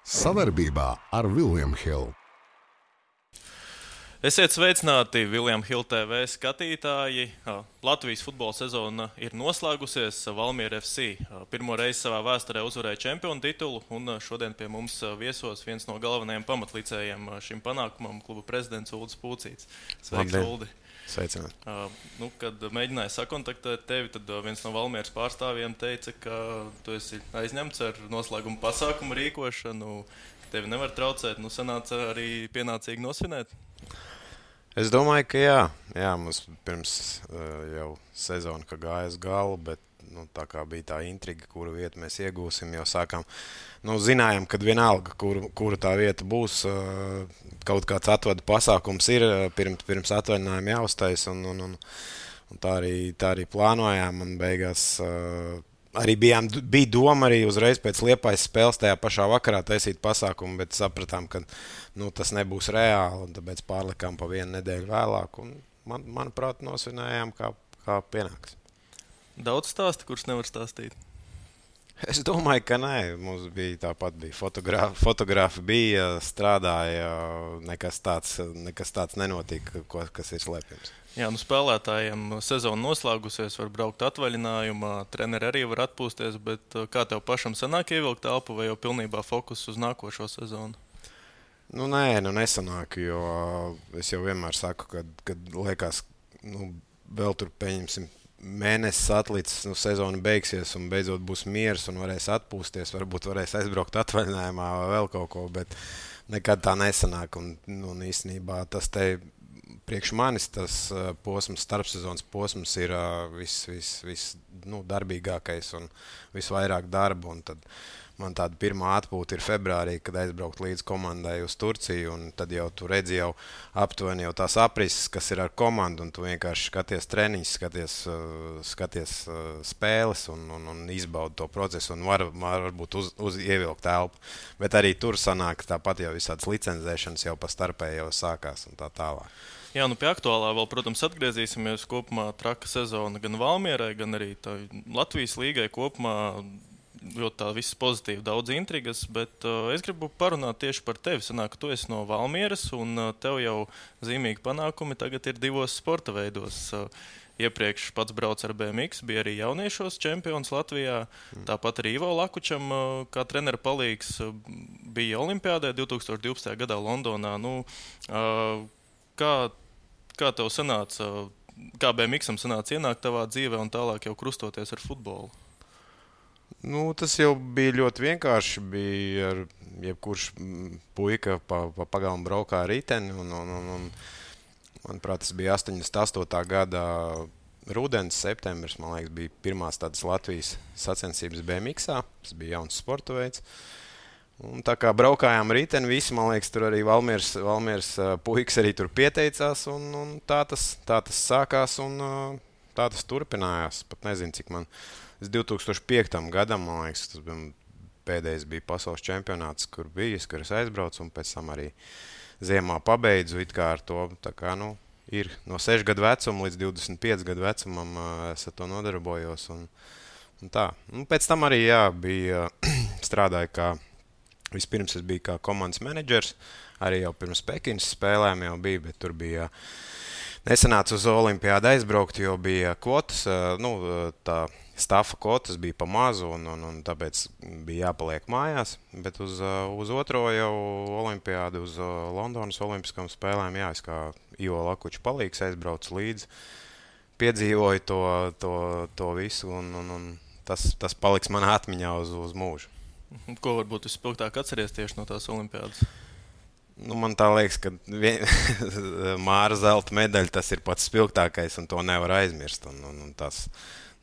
Sadarbībā ar William Hill. Esiet sveicināti, William Hill TV skatītāji. Latvijas futbola sezona ir noslēgusies. Valmiera FC pirmo reizi savā vēsturē uzvarēja čempionu titulu, un šodien pie mums viesos viens no galvenajiem pamatlicējiem šim panākumam - kluba prezidents Uldis Pūcīts. Sveiks, Uldi! Sveicināt. Kad mēģināju sakontaktēt tevi, tad viens no Valmieras pārstāvjiem teica, ka tu esi aizņemts ar noslēguma pasākumu rīkošanu, ka tevi nevar traucēt. Sanāca arī pienācīgi nosvinēt? Es domāju, ka jā, mums pirms jau sezona gāja uz galu, bet tā kā bija tā intriga, kuru vietu mēs iegūsim, jau sākām. Zinājām, ka vienalga, kura tā vieta būs, kaut kāds atvadu pasākums ir pirms atvaļinājuma jāuztais, un tā arī plānojām, un beigās arī bija doma arī uzreiz pēc Liepājas spēles tajā pašā vakarā taisīt pasākumu, bet sapratām, ka tas nebūs reāli, un tāpēc pārlikām pa vienu nedēļu vēlāk, un manuprāt, nosvinējām, kā pienāks. Daudz stāstu, kurš nevar stāstīt? Es domāju, ka nē. Mums bija tāpat fotografi bija, strādāja, nekas tāds nenotika, kas ir slēpjams. Jā, spēlētājiem sezona noslēgusies, var braukt atvaļinājumā, treneri arī var atpūsties, bet kā tev pašam sanāk ievilkt telpu vai jau pilnībā fokus uz nākošo sezonu? Nē, nesanāk, jo es jau vienmēr saku, kad liekas, vēl tur pieņemsim mēnesis atlicis, sezona beigsies un beidzot būs miers un varēs atpūsties, varbūt varēs aizbraukt atvaļinājumā vai vēl kaut ko, bet nekad tā nesanāk. Un īstenībā tas te priekš manis tas posms, starpsezonas posms ir viss darbīgākais un visvairāk darba. Un tad man tāda pirmā atpūta ir februārī, kad aizbraukt līdz komandai uz Turciju, un tad jau tu redzi jau aptuveni jau tās aprises, kas ir ar komandu, un tu vienkārši skaties treniņus, skaties spēles un izbaudi to procesu, un varbūt ievilkt telpu. Bet arī tur sanāk tāpat jau visādas licencēšanas jau pa starpē jau sākās un tā tālāk. Jā, pie aktuālā vēl, protams, atgriezīsimies. Kopumā traka sezona gan Valmierai, gan arī Latvijas līgai kopumā. Jo tā viss pozitīvi, daudz intrigas, bet es gribu parunāt tieši par tevi. Sanāk, ka tu esi no Valmieras, un tev jau zīmīgi panākumi tagad ir divos sporta veidos. Iepriekš pats brauc ar BMX, bija arī jauniešos čempions Latvijā. Tāpat arī Ivo Lakučam, kā trenera palīgs, bija Olimpiādē 2012. gadā Londonā. Kā tev sanāca, kā BMX-am sanāca ienākt tavā dzīvē un tālāk jau krustoties ar futbolu? Tas jau bija ļoti vienkārši. Bija ar jebkurš puika pa pagalmu braukā ar riteni. Manuprāt, tas bija 88. gada rudens, septembris. Man liekas, bija pirmās tādas Latvijas sacensības BMX-ā. Tas bija jauns sporta veids. Un tā kā braukājām riteni, visi, man liekas, tur arī Valmieras puikas arī tur pieteicās. Un tā tas sākās un tā tas turpinājās. Pat nezinu, cik man... 2005. gadam, man liekas, tas pēdējais bija pasaules čempionāts, kur es aizbraucu, un pēc tam arī ziemā pabeidzu it kā ar to. Tā kā, ir no 6 gadu vecuma līdz 25 gadu vecumam es ar to nodarbojos. Un tā. Pēc tam arī bija strādāju vispirms es biju kā komandas menedžers, arī jau pirms Pekinas spēlēm jau bija, bet tur bija nesanāca uz Olimpiādu aizbraukt, jo bija kvotas, tā stafa kvotas bija pa mazu, un tāpēc bija jāpaliek mājās. Bet uz otro jau Olimpiādu, uz Londonas Olimpiskām spēlēm, es kā Ivo Lakuča palīgs aizbraucu līdzi, piedzīvoju to visu, un tas paliks manā atmiņā uz mūžu. Ko varbūt vispilgtāk atceries tieši no tās Olimpiādas? Man tā liekas, ka Māra zelta medaļa tas ir pats spilgtākais, un to nevar aizmirst. Un tas,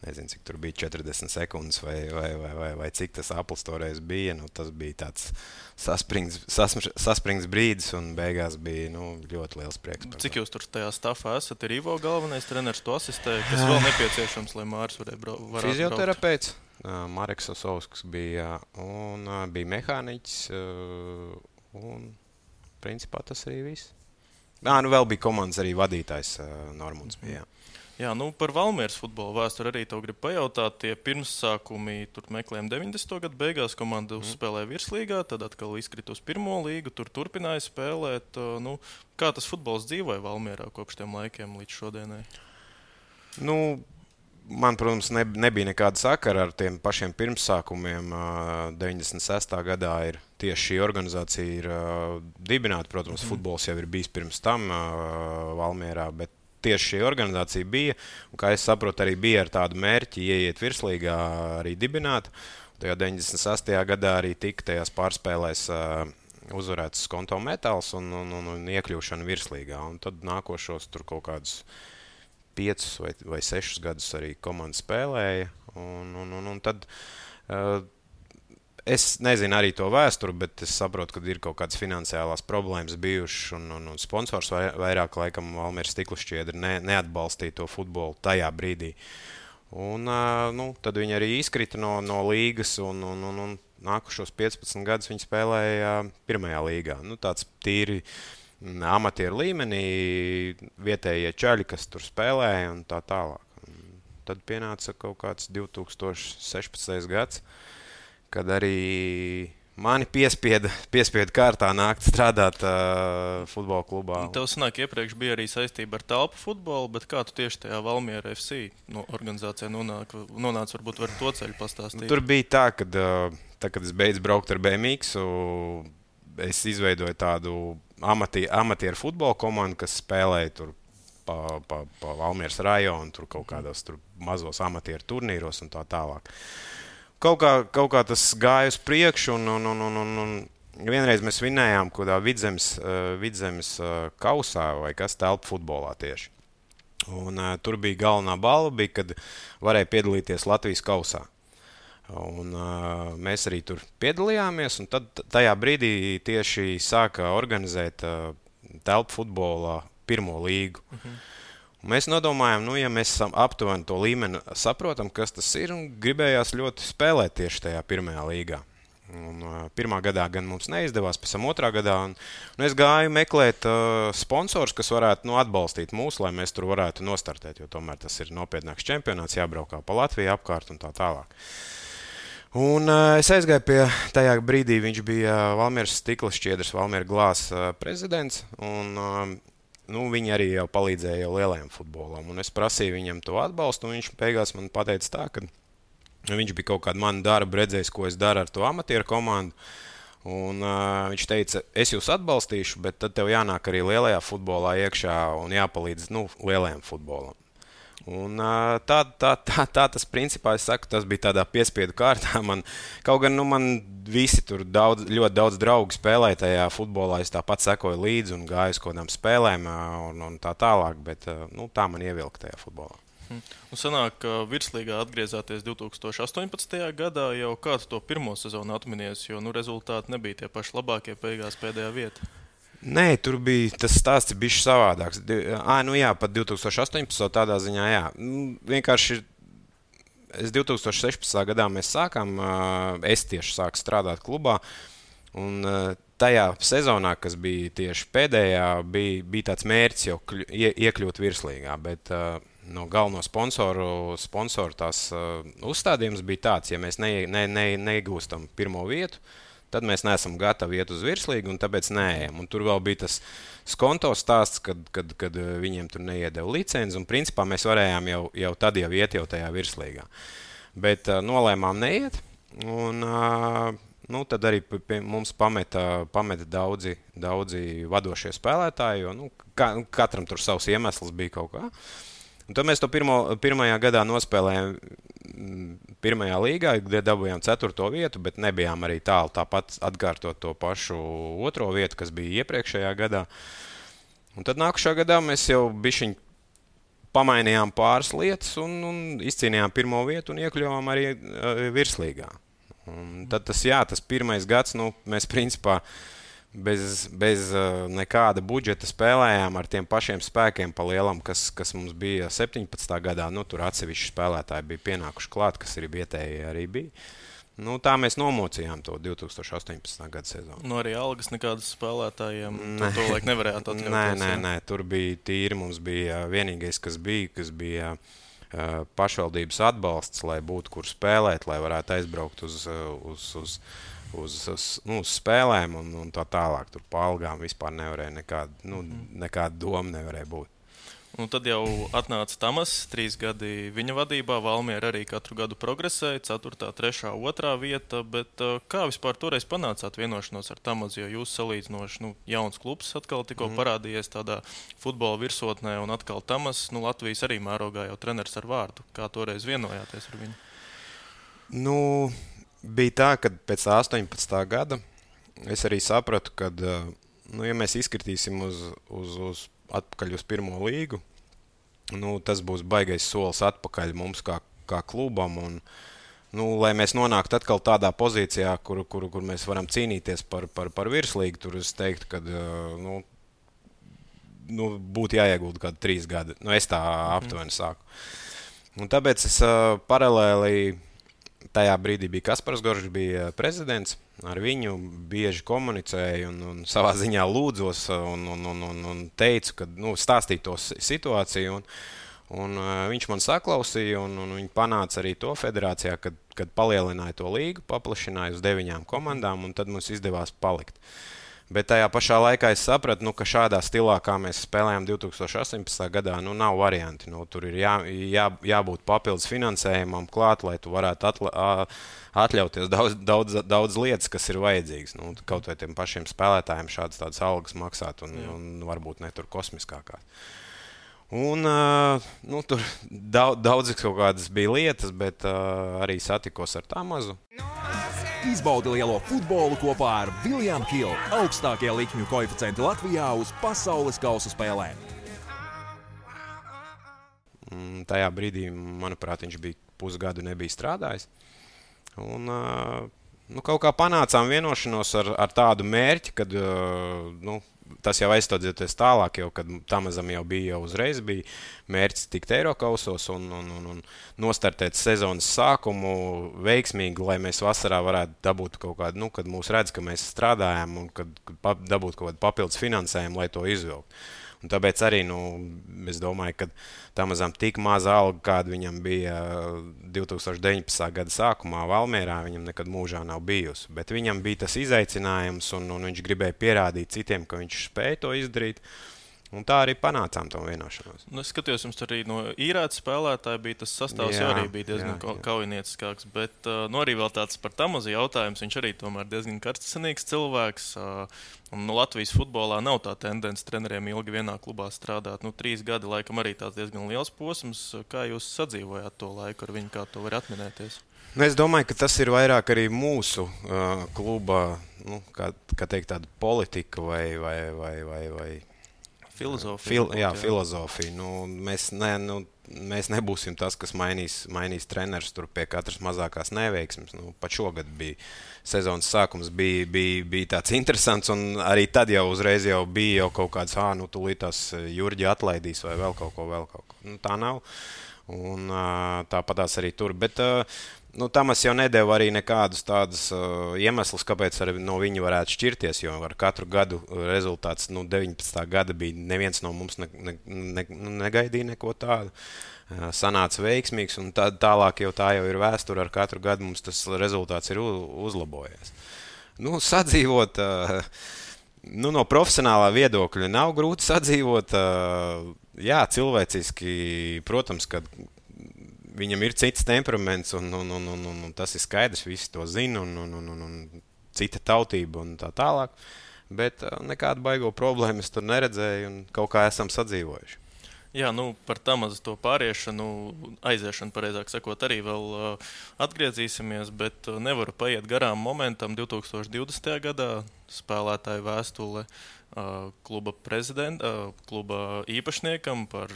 nezinu, cik tur bija 40 sekundes vai cik tas aplis toreiz bija. Tas bija tāds saspringts brīdis, un beigās bija ļoti liels prieks. Cik jūs tur tajā stafā esat? Ir Ivo galvenais treneris, to asistē, kas vēl nepieciešams, lai Māris varētu braukt? Fizioterapeits. Mareks Osovskis bija, un bija mehāniķis, un principā tas arī viss. Vēl bija komandas arī vadītājs Normunds bija. Jā, par Valmieras futbola vēsturi arī tev gribu pajautāt. Tie pirmsākumi tur meklējām 90. gadu beigās. Komanda uzspēlēja virslīgā, tad atkal izkrita uz pirmo līgu, tur turpināja spēlēt. Kā tas futbols dzīvoja Valmierā kopš tiem laikiem līdz šodienai? Man, protams, nebija nekāda sakara ar tiem pašiem pirmsākumiem. 96. gadā ir tieši šī organizācija ir dibināta. Protams, futbols jau ir bijis pirms tam Valmierā, bet tieši šī organizācija bija. Un, kā es saprotu, arī bija ar tādu mērķi ieiet virslīgā arī dibināt. Tajā 96. gadā arī tika tajās pārspēlēs uzvarēts Skonto Metāls un iekļūšana virslīgā. Un tad nākošos tur kaut kādus 5 vai 6 gadus arī komanda spēlēja. Un tad es nezinu arī to vēsturi, bet es saprotu, ka ir kaut kādas finansiālās problēmas bijušas. Un sponsors vairāk laikam Valmieras stikla šķiedra neatbalstīja to futbolu tajā brīdī. Un tad viņi arī izkrita no līgas un nākušos 15 gadus viņi spēlēja pirmajā līgā. Tāds tīri amatieru līmenī, vietējie čaļi, kas tur spēlēja un tā tālāk. Tad pienāca kaut kāds 2016. gads, kad arī mani piespieda kārtā nākt strādāt futbola klubā. Tev sanāk, iepriekš bija arī saistība ar telpu futbolu, bet kā tu tieši tajā Valmiera FC organizācijā nonāca, varbūt var to ceļu pastāstīt? Tur bija tā, kad es beidzu braukt ar BMX, es izveidoju tādu amatieru futbola komandu, kas spēlēja tur pa Valmieras rajonu, tur kaut kādos tur mazos amatieru turnīros un tā tālāk. Kaut kā tas gāja uz priekšu, un vienreiz mēs vinējām kādā Vidzemes kausā vai kas telpu futbolā tieši. Un tur bija galvenā balva, kad varēja piedalīties Latvijas kausā. Un mēs arī tur piedalījāmies, un tad tajā brīdī tieši sāka organizēt telpu futbolā pirmo līgu. Un mēs nodomājām, ja mēs aptuveni to līmeni saprotam, kas tas ir, un gribējās ļoti spēlēt tieši tajā pirmajā līgā. Un, pirmā gadā gan mums neizdevās, pēc tam otrā gadā. Un es gāju meklēt sponsors, kas varētu atbalstīt mūs, lai mēs tur varētu nostartēt, jo tomēr tas ir nopietnāks čempionāts, jābraukā pa Latviju apkārt un tā tālāk. Un es aizgāju pie tajā brīdī, viņš bija Valmieras stikla šķiedras, Valmiera glāzes prezidents, un viņi arī jau palīdzēja jau lielajam futbolam. Un es prasīju viņam to atbalstu, un viņš beigās man pateica tā, ka viņš bija kaut kādu manu darbu redzējis, ko es daru ar to amatieru komandu. Un viņš teica, es jūs atbalstīšu, bet tad tev jānāk arī lielajā futbolā iekšā un jāpalīdz lielajam futbolam. Un tā tas principā, es saku, tas bija tādā piespiedu kārtā. Kaut gan man visi tur ļoti daudz draugu spēlēja tajā futbolā, es tāpat sekoju līdzi un gāju uz kādām spēlēm un tā tālāk, bet tā man ievilka tajā futbolā. Un sanāk, ka virslīgā atgriezāties 2018. gadā, jau kādu to pirmo sezonu atminies, jo rezultāti nebija tie paši labākie, beigās pēdējā vieta. Nē, tur bija tas stāsts bišķi savādāks. Pat 2018. tādā ziņā, jā. Vienkārši es 2016. gadā mēs sākām, es tieši sāku strādāt klubā, un tajā sezonā, kas bija tieši pēdējā, bija tāds mērķis jau iekļūt virslīgā, bet no galveno sponsoru tās uzstādījums bija tāds, ja mēs neiegūstam pirmo vietu, tad mēs neesam gatavi iet uz virslīgu, un tāpēc neejam. Un tur vēl bija tas Skonto stāsts, kad viņiem tur neiedeva licenci, un principā mēs varējām jau tad iet jau tajā virslīgā. Bet nolēmām neiet, un tad arī mums pameta daudzi vadošie spēlētāji, jo katram tur savs iemesls bija kaut kā. Un tad mēs to pirmajā gadā nospēlējām pirmajā līgā, kde dabūjām 4. vietu, bet nebijām arī tālu tāpat atkārtot to pašu 2. vietu, kas bija iepriekšējā gadā. Un tad nākušā gadā mēs jau bišķiņ pamainījām pāris lietas un izcīnījām 1. vietu un iekļuvām arī virslīgā. Un tad tas pirmais gads, mēs principā bez nekāda budžeta spēlējām ar tiem pašiem spēkiem pa lielam, kas mums bija 17. gadā. Tur atsevišķi spēlētāji bija pienākuši klāt, kas arī vietēji arī bija. Nu, tā mēs nomocījām to 2018. gada sezonu. Nu, arī algas nekādas spēlētājiem to laik nevarējāt atļauties. Nē, tur bija tīri. Mums bija vienīgais, kas bija pašvaldības atbalsts, lai būtu kur spēlēt, lai varētu aizbraukt uz spēlēm un tā tālāk. Tur pa algām vispār nevarēja nekāda doma nevarēja būt. Un tad jau atnāca Tamas, 3 gadi viņa vadībā. Valmiera arī katru gadu progresēja, 4., 3., 2. vieta. Bet kā vispār toreiz panācāt vienošanos ar Tamazu? Jo jūs salīdzinoši jauns klubs atkal tikko parādījies tādā futbola virsotnē, un atkal Tamas, Latvijas arī mērogā jau treneris ar vārdu. Kā toreiz vienojāties ar viņu? Nu, bija tā, ka pēc 18. gada es arī sapratu, ka, ja mēs izkritīsim atpakaļ uz pirmo līgu, tas būs baigais solis atpakaļ mums kā klubam. Un, lai mēs nonāktu atkal tādā pozīcijā, kur mēs varam cīnīties par virslīgu, tur es teiktu, ka būtu jāiegulda kādi 3 gadi. Es tā aptuveni sāku. Un tāpēc es paralēli tajā brīdī bija Kaspars Goržs, bija prezidents. Ar viņu bieži komunicēju un savā ziņā lūdzos un teicu, ka stāstīju to situāciju. Un viņš man saklausīja, un viņi panāca arī to federācijā, kad palielināja to līgu, paplašināja uz 9 komandām, un tad mums izdevās palikt. Bet tajā pašā laikā es sapratu, ka šādā stilā, kā mēs spēlējām 2018. gadā, nav varianti. Tur ir jābūt papildus finansējumam klāt, lai tu varētu atļauties daudz lietas, kas ir vajadzīgas. Kaut vai tiem pašiem spēlētājiem šādas algas maksāt un varbūt ne tur kosmiskākās. Un tur daudz kaut kādas bija lietas, bet arī satikos ar Tamazu. Izbaudi lielo futbolu kopā ar William Hill, augstākie likmju koeficienti Latvijā uz pasaules kausa spēlēm. Tajā brīdī, manuprāt, viņš bija pusgadu nebija strādājis. Un kaut kā panācām vienošanos ar tādu mērķi, kad tas jau aizstādzīties tālāk, kad Tamazam jau bija uzreiz bija mērķis tikt Eirokausos un nostartēt sezonas sākumu veiksmīgi, lai mēs vasarā varētu dabūt kaut kādu, kad mūs redz, ka mēs strādājam un kad dabūt kaut kādu papildus finansējumu, lai to izvilkt. Un tāpēc arī es domāju, ka Tamazam tik maza alga, kāda viņam bija 2019. gada sākumā Valmierā, viņam nekad mūžā nav bijusi. Bet viņam bija tas izaicinājums, un viņš gribēja pierādīt citiem, ka viņš spēja to izdarīt. Un tā arī panācām to vienošanos. Es skatījos, jums arī no īrēta spēlētāja bija tas sastāvs, jau arī bija diezgan kaujinieciskāks. Bet arī vēl tāds par Tamazu jautājums. Viņš arī tomēr diezgan karstasinīgs cilvēks. Un Latvijas futbolā nav tā tendence treneriem ilgi vienā klubā strādāt. 3 gadi laikam arī tāds diezgan liels posms. Kā jūs sadzīvojāt to laiku ar viņu, kā to var atminēties? Es domāju, ka tas ir vairāk arī mūsu kluba, kā teikt, tāda politika vai filozofija. Mēs nebūsim tas, kas mainīs trenerus tur pie katras mazākās neveiksmes. Pat šogad bija sezonas sākums, bija tāds interesants, un arī tad jau uzreiz bija kaut kāds, tūlīt tās Jurģi atlaidīs vai vēl kaut ko. Tā nav. Un tāpatās arī tur. Bet Tamas jau nedēva arī nekādus tādus iemeslus, kāpēc no viņa varētu šķirties, jo ar katru gadu rezultāts 19. gada bija neviens no mums negaidīja neko tādu. Sanāca veiksmīgs, un tālāk jau tā jau ir vēsture. Ar katru gadu mums tas rezultāts ir uzlabojies. Sadzīvot, no profesionālā viedokļa nav grūti sadzīvot. Jā, cilvēciski, protams, ka viņam ir cits temperaments, un tas ir skaidrs, visi to zina, un cita tautība un tā tālāk. Bet nekādu baigo problēmu es tur neredzēju, un kaut kā esam sadzīvojuši. Jā, par Tamazu to pāriešanu, aiziešanu, pareizāk sakot, arī vēl atgriezīsimies, bet nevaru paiet garām momentam 2020. gadā spēlētāju vēstule kluba īpašniekam par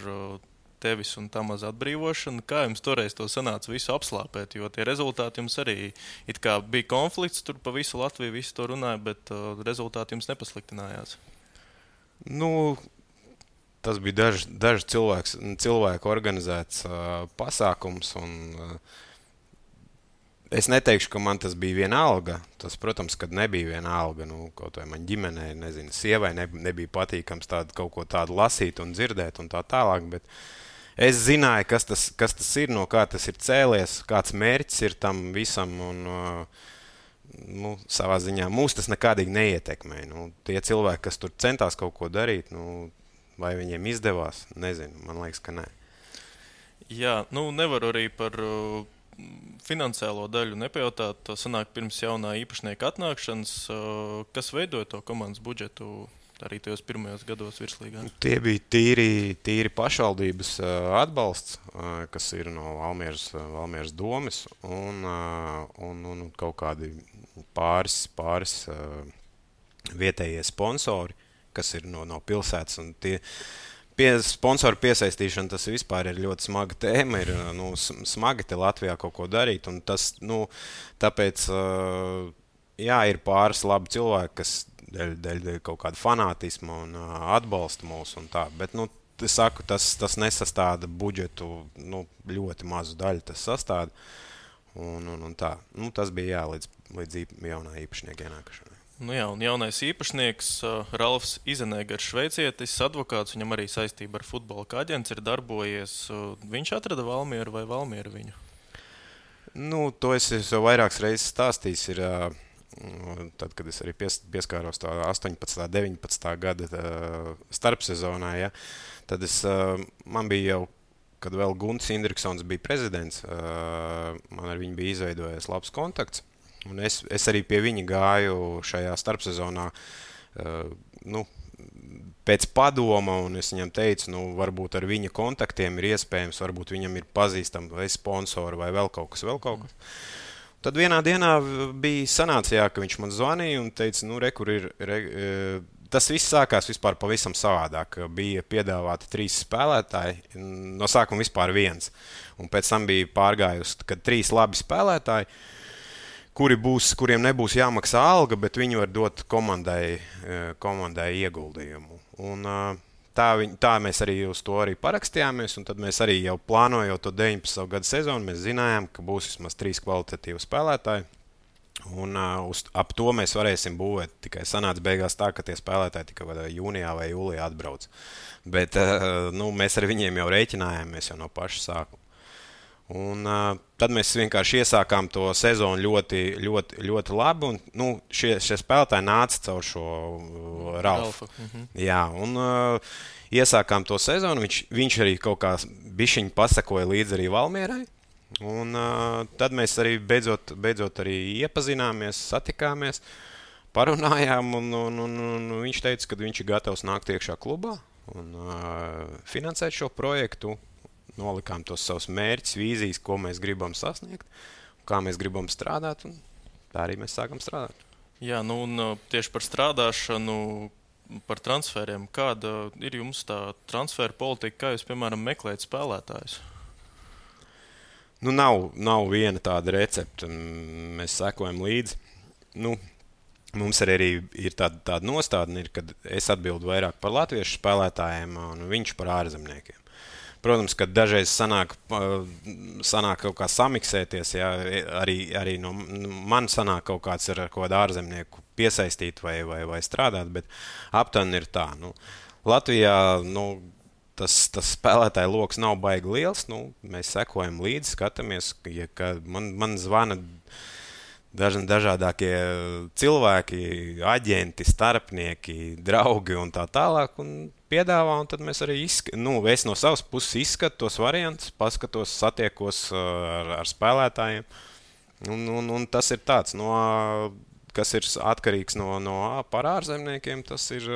tevis un Tamaza atbrīvošanu. Kā jums toreiz to sanāca visu apslāpēt, jo tie rezultāti jums arī it kā bija konflikts, tur pa visu Latviju visi to runāja, bet rezultāti jums nepasliktinājās? Tas bija dažu cilvēku organizēts pasākums, un Es neteikšu, ka man tas bija vienalga. Tas, protams, kad nebija vienalga. Kaut vai man ģimenei, nezinu, sievai nebija patīkams kaut ko tādu lasīt un dzirdēt un tā tālāk. Bet es zināju, kas tas ir, no kā tas ir cēlies, kāds mērķis ir tam visam. Un, savā ziņā mūs tas nekādīgi neietekmē. Tie cilvēki, kas tur centās kaut ko darīt, vai viņiem izdevās, nezinu. Man liekas, ka nē. Jā, nevaru arī par finansiālo daļu nepajautāt. To sanāk pirms jaunā īpašnieka atnākšanas. Kas veidoja to komandas budžetu arī tajos pirmajos gados virslīgā? Tie bija tīri pašvaldības atbalsts, kas ir no Valmieras domes un kaut kādi pāris vietējie sponsori, kas ir no pilsētas. Un sponsoru piesaistīšana, tas vispār ir ļoti smaga tēma. Ir smagi te Latvijā kaut ko darīt. Un tas, tāpēc, ir pāris labi cilvēki, kas dēļ kaut kāda fanātisma un atbalsta mūs un tā. Bet, es saku, tas nesastāda budžetu, ļoti mazu daļu tas sastāda. Un tā. Tas bija līdz jaunā īpašnieka ienākšanai. Jā, un jaunais īpašnieks Ralfs Izenegers, šveicietis, advokāts, viņam arī saistība ar futbola kā aģents ir darbojies. Viņš atrada Valmieru vai Valmiera viņu? To es jau vairākas reizes stāstījis. Tad, kad es arī pieskāros tā 18. 19. gada starpsezonā, tad man bija jau, kad vēl Gunts Indriksons bija prezidents, man ar viņu bija izveidojies labs kontakts. Un es arī pie viņa gāju šajā starpsezonā pēc padoma, un es viņam teicu, varbūt ar viņa kontaktiem ir iespējams, varbūt viņam ir pazīstami vai sponsori vai vēl kaut kas. Tad vienā dienā bija sanācijā, ka viņš man zvanīja un teica, kur ir. Tas viss sākās vispār pavisam savādāk. Bija piedāvāti 3 spēlētāji, no sākuma vispār 1. Un pēc tam bija pārgājusi, kad 3 labi spēlētāji, kuriem nebūs jāmaksā alga, bet viņi var dot komandai ieguldījumu. Un tā mēs arī uz to arī parakstījāmies, un tad mēs arī jau plānojot to 19. gada sezonu, mēs zinājām, ka būs vismaz 3 kvalitatīvi spēlētāji. Un ap to mēs varēsim būvēt. Tikai sanāca beigās tā, ka tie spēlētāji tikai jūnijā vai jūlijā atbrauc. Bet mēs ar viņiem jau rēķinājāmies jau no paša sākuma. Un tad mēs vienkārši iesākām to sezonu ļoti, ļoti, ļoti labi. Un, šie spēlētāji nāca caur šo Ralfu. Jā, un iesākām to sezonu. Viņš arī kaut kā bišķiņ pasakoja līdzi arī Valmierai. Un tad mēs arī beidzot arī iepazināmies, satikāmies, parunājām. Un viņš teica, ka viņš ir gatavs nākt iekšā klubā un finansēt šo projektu. Nolikām tos savus mērķus, vīzijas, ko mēs gribam sasniegt, kā mēs gribam strādāt, un tā arī mēs sākam strādāt. Jā, un tieši par strādāšanu, par transferiem. Kāda ir jums tā transfera politika, kā jūs, piemēram, meklējat spēlētājus? Nav viena tāda recepte. Mēs sekojam līdzi. Mums arī ir tāda nostādne, kad es atbildu vairāk par latviešu spēlētājiem un viņš par ārzemniekiem. Protams, ka dažreiz sanāk kaut kā samiksēties, arī no man sanāk kaut kāds ar kaut kādu ārzemnieku piesaistīt vai strādāt, bet aptuveni ir tā. Latvijā tas spēlētāju loks nav baigi liels, mēs sekojam līdzi, skatāmies, ka man zvana dažādākie cilvēki, aģenti, starpnieki, draugi un tā tālāk, un piedāvā, un tad mēs arī es no savas puses izskatu tos variantus, paskatos, satiekos ar spēlētājiem, un tas ir tāds, kas ir atkarīgs par ārzemniekiem, tas ir,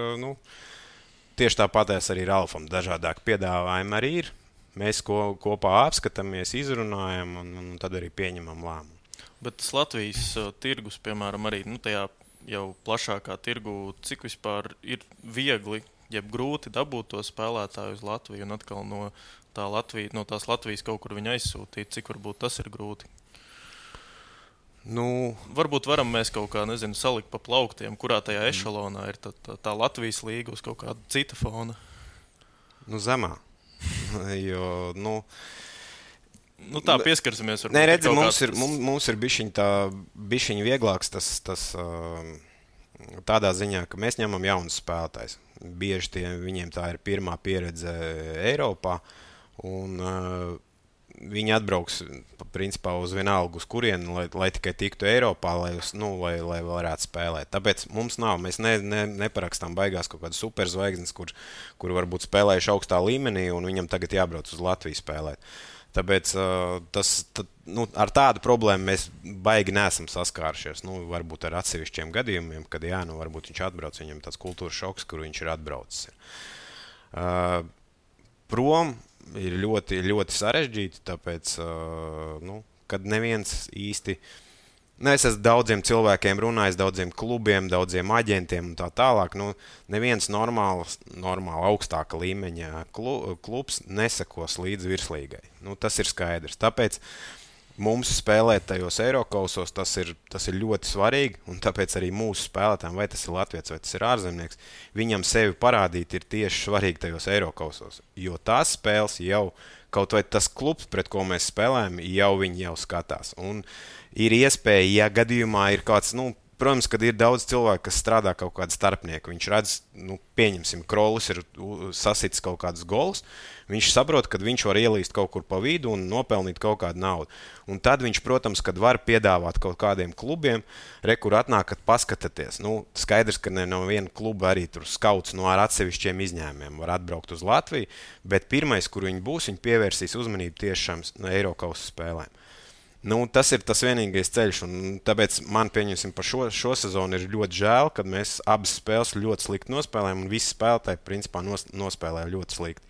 tieši tāpatās arī Ralfam dažādāk piedāvājumi arī ir. Mēs kopā apskatāmies, izrunājam, un tad arī pieņemam lēmumu. Bet tas Latvijas tirgus, piemēram, arī tajā jau plašākā tirgu, cik vispār ir viegli, jeb grūti dabūt to spēlētāju uz Latviju un atkal no tās Latvijas kaut kur viņu aizsūtīt, cik varbūt tas ir grūti? Varbūt varam mēs kaut kā, salikt pa plauktiem, kurā tajā ešalonā ir tā Latvijas līga uz kaut kāda cita fona? Zemā. Jo, Nu, tā pieskarsimies. Nē, redzi, mums ir bišķiņ vieglāks tas tādā ziņā, ka mēs ņemam jaunus spēlētājus. Bieži viņiem tā ir pirmā pieredze Eiropā, un viņi atbrauks principā uz vienalgu, uz kurieni, lai tikai tiktu Eiropā, lai varētu spēlēt. Tāpēc mēs neparakstām baigās kaut kādas superzvaigznes, kur varbūt spēlējuši augstā līmenī, un viņam tagad jābrauc uz Latviju spēlēt. Tāpēc ar tādu problēmu mēs baigi neesam saskārušies. Varbūt ar atsevišķiem gadījumiem, kad varbūt viņš atbrauc, viņam tāds kultūras šoks, kur viņš ir atbraucis. Prom ir ļoti, ļoti sarežģīti, tāpēc, kad neviens īsti... Es esmu daudziem cilvēkiem runājis, daudziem klubiem, daudziem aģentiem un tā tālāk. Neviens normāli augstāka līmeņa klubs nesakos līdz virslīgai. Tas ir skaidrs. Tāpēc mums spēlēt tajos Eirokausos tas ir ļoti svarīgi, un tāpēc arī mūsu spēlētājiem, vai tas ir latviečs, vai tas ir ārzemnieks, viņam sevi parādīt ir tieši svarīgi tajos Eirokausos. Jo tās spēles jau, kaut vai tas klubs, pret ko mēs spēlējam, viņi jau skatās. Un ir iespēja, ja gadījumā ir kāds, protams, kad ir daudz cilvēku, kas strādā kaut kādu starpnieku, viņš redz, pieņemsim, Krolis ir sasitis kaut kādus golus, viņš saprot, ka viņš var ielīst kaut kur pa vidu un nopelnīt kaut kādu naudu. Un tad viņš, protams, kad var piedāvāt kaut kādiem klubiem, kur atnākat paskatāties. Skaidrs, ka ne no viena kluba arī tur skauts ar atsevišķiem izņēmumiem var atbraukt uz Latviju, bet pirmais, kur viņi būs, viņi pievērsīs uzmanību tieši šām Eirokausu spēlēm. Tas ir tas vienīgais ceļš, un tāpēc man, pieņemsim, par šo sezonu ir ļoti žēl, kad mēs abas spēles ļoti slikti nospēlējām, un visi spēlētāji, principā, nospēlēja ļoti slikti.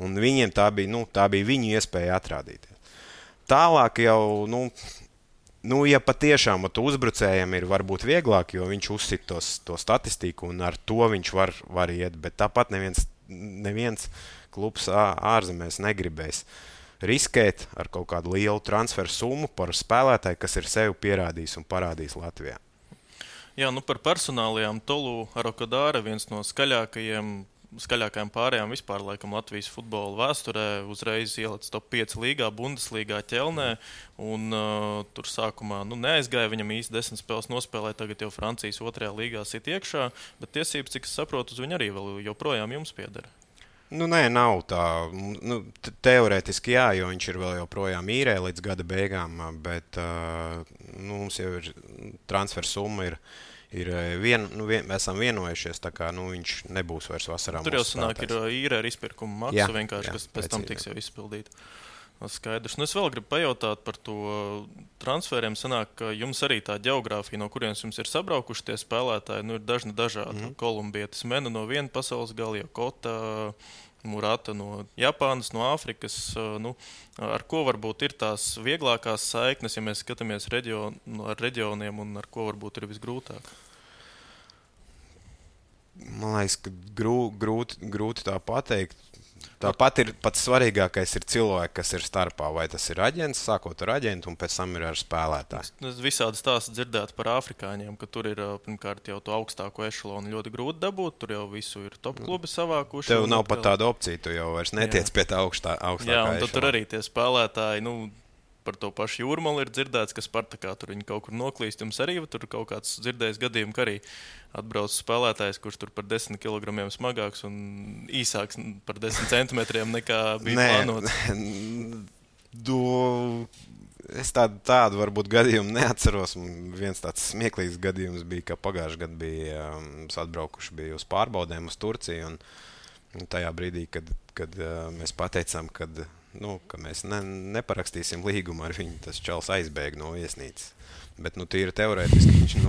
Un viņiem tā bija viņu iespēja atrādīties. Tālāk jau, ja patiešām uzbrucējiem ir varbūt vieglāk, jo viņš uzsit to statistiku, un ar to viņš var iet, bet tāpat neviens klubs ārzemēs negribēs riskēt ar kaut kādu lielu transferu summu par spēlētāju, kas ir sevi pierādījis un parādījis Latvijā. Jā, par personālajām Tolu Arokadāra, viens no skaļākajām pārējām vispār laikam Latvijas futbola vēsturē, uzreiz ielicis top 5 līgā, Bundeslīgā ķelnē, un tur sākumā neaizgāja, viņam īsti 10 spēles nospēlēja, tagad jau Francijas 2. līgā sit iekšā, bet tiesības, cik es saprotu, uz viņu arī vēl joprojām jums pieder. Nē, nav tā. Teorētiski jā, jo viņš ir vēl joprojām īrē līdz gada beigām, bet mums jau ir transfer summa esam vienojušies, tā kā viņš nebūs vairs vasarā. Tur jau sanāk ir īrē ar izpirkumu maksu vienkārši, kas pēc tam tiks jau izpildīt. Skaidrs. Es vēl gribu pajautāt par to transferiem. Sanāk, ka jums arī tā ģeogrāfija, no kurienes jums ir sabraukuši tie spēlētāji, ir dažādi. Kolumbietis Mena no viena pasaules gala, Kota, Murata no Japānas, no Āfrikas. Ar ko varbūt ir tās vieglākās saiknes, ja mēs skatāmies ar reģioniem, un ar ko varbūt ir visgrūtāk? Man liekas, ka grūti tā pateikt. Tāpat ir pats svarīgākais ir cilvēki, kas ir starpā. Vai tas ir aģents, sākot ar aģentu, un pēc tam ir ar spēlētāju. Es visādi stāstu dzirdētu par afrikāņiem, ka tur ir pirmkārt jau to augstāko ešalonu ļoti grūti dabūt. Tur jau visu ir top klubi savākuši. Tev nav pat tāda opcija, tu jau vairs netiec pie tā augstākā ešalona. Jā, un tad tur arī tie spēlētāji, par to pašu Jūrmalu ir dzirdēts, ka Spartakā tur viņi kaut kur noklīst. Jums arī tur kaut kāds dzirdējis gadījums, ka arī atbrauc spēlētājs, kurš tur par 10 kg smagāks un īsāks par 10 centimetriem nekā bija plānots. Es tādu varbūt gadījumu neatceros. Viens tāds smieklīgs gadījums bija, ka pagājušajā gadā bija atbraukuši uz pārbaudēm uz Turciju. Un tajā brīdī, kad mēs pateicām, ka mēs neparakstīsim līgumu ar viņu, tas čals aizbēga no viesnīcas. Bet tīri teorētiski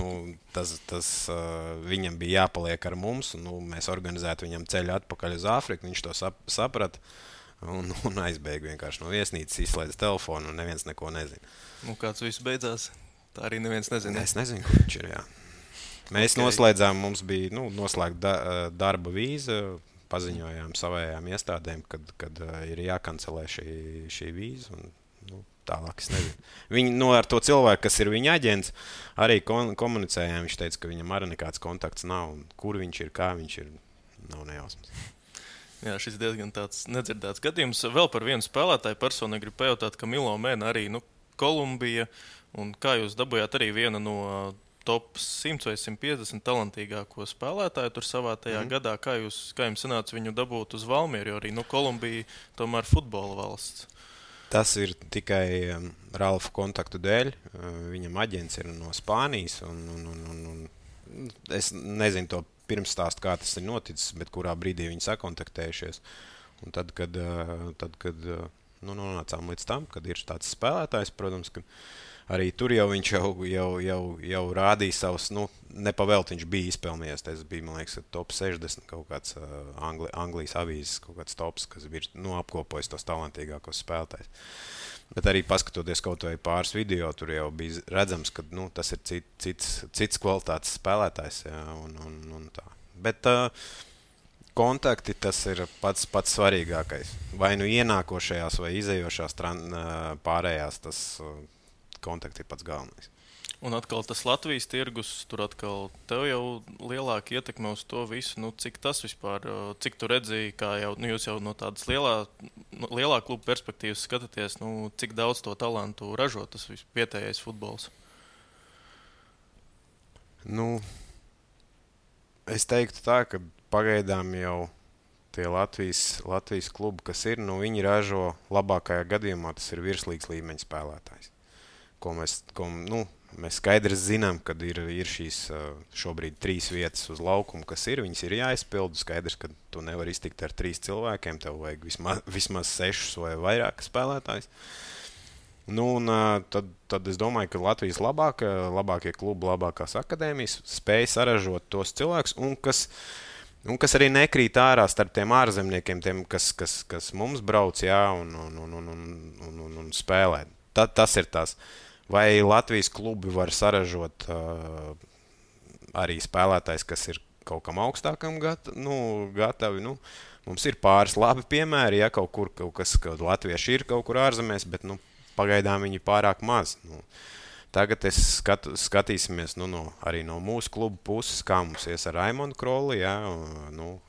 viņam bija jāpaliek ar mums, un mēs organizētu viņam ceļu atpakaļ uz Āfriku. Viņš to saprata un aizbēga vienkārši no viesnīcas, izslēdz telefonu, un neviens neko nezina. Kāds viss beidzās? Tā arī neviens nezina. Es nezinu, kur viņš ir, jā. Mēs noslēdzām, mums bija noslēgta darba vīza, paziņojām savējām iestādēm, kad ir jākancelē šī vīza, un tālāk es nezinu. Viņi ar to cilvēku, kas ir viņa aģents, arī komunicējām. Viņš teica, ka viņam arī nekāds kontakts nav, un kur viņš ir, kā viņš ir, nav nejausmas. Jā, šis diezgan tāds nedzirdēts gadījums. Vēl par vienu spēlētāju personīgi gribu pajautāt, ka Milo Mēna arī Kolumbija. Un kā jūs dabūjāt arī vienu no top 100 vai 150 talantīgāko spēlētāju tur savā tajā gadā? Kā jums sanāca viņu dabūt uz Valmieru, jo arī Kolumbija tomēr futbola valsts? Tas ir tikai Ralfa kontaktu dēļ. Viņam aģents ir no Spānijas. Un es nezinu to pirmstāstu, kā tas ir noticis, bet kurā brīdī viņi sakontaktējušies. Un tad, kad nonācām līdz tam, kad ir tāds spēlētājs, protams, ka arī tur jau viņš jau rādīja savus, nepavēlt viņš bija izpelnījies. Tas bija, man liekas, top 60 kaut kāds Anglijas avīzes, kaut kāds tops, kas bija apkopojis tos talantīgākos spēlētājus. Bet arī paskatoties kaut vai pāris video, tur jau bija redzams, ka tas ir cits kvalitātes spēlētājs. Jā, un tā. Bet kontakti tas ir pats svarīgākais. Vai ienākošajās vai izējošās pārējās, tas kontakti ir pats galvenais. Un atkal tas Latvijas tirgus, tur atkal tev jau lielāka ietekme uz to visu. Cik tas vispār, cik tu redzēji, kā jau, jūs jau no tādas lielā kluba perspektīvas skatāties, cik daudz to talantu ražo tas vietējais futbols? Es teiktu tā, ka pagaidām jau tie Latvijas klubi, kas ir, viņi ražo labākajā gadījumā, tas ir virslīgas līmeņa spēlētājs. Mēs skaidri zinām, ka ir šīs šobrīd 3 vietas uz laukumu, kas ir. Viņas ir jāizpildu. Skaidrs, ka tu nevari iztikt ar 3 cilvēkiem. Tev vajag vismaz 6 vai vairāk spēlētājs. Tad es domāju, ka Latvijas labākie klubi, labākās akadēmijas spēj saražot tos cilvēkus, un kas arī nekrīt ārā starp tiem ārzemniekiem, tiem, kas mums brauc, jā, un spēlē. Tas ir tas. Vai Latvijas klubi var saražot arī spēlētājs, kas ir kaut kam augstākam gatavi? Mums ir pāris labi piemēri, ja kaut kas latvieši ir kaut kur ārzemēs, bet pagaidām viņi pārāk maz. Tagad skatīsimies arī no mūsu klubu puses, kā mums ies ar Raimondu Krolli. Ja?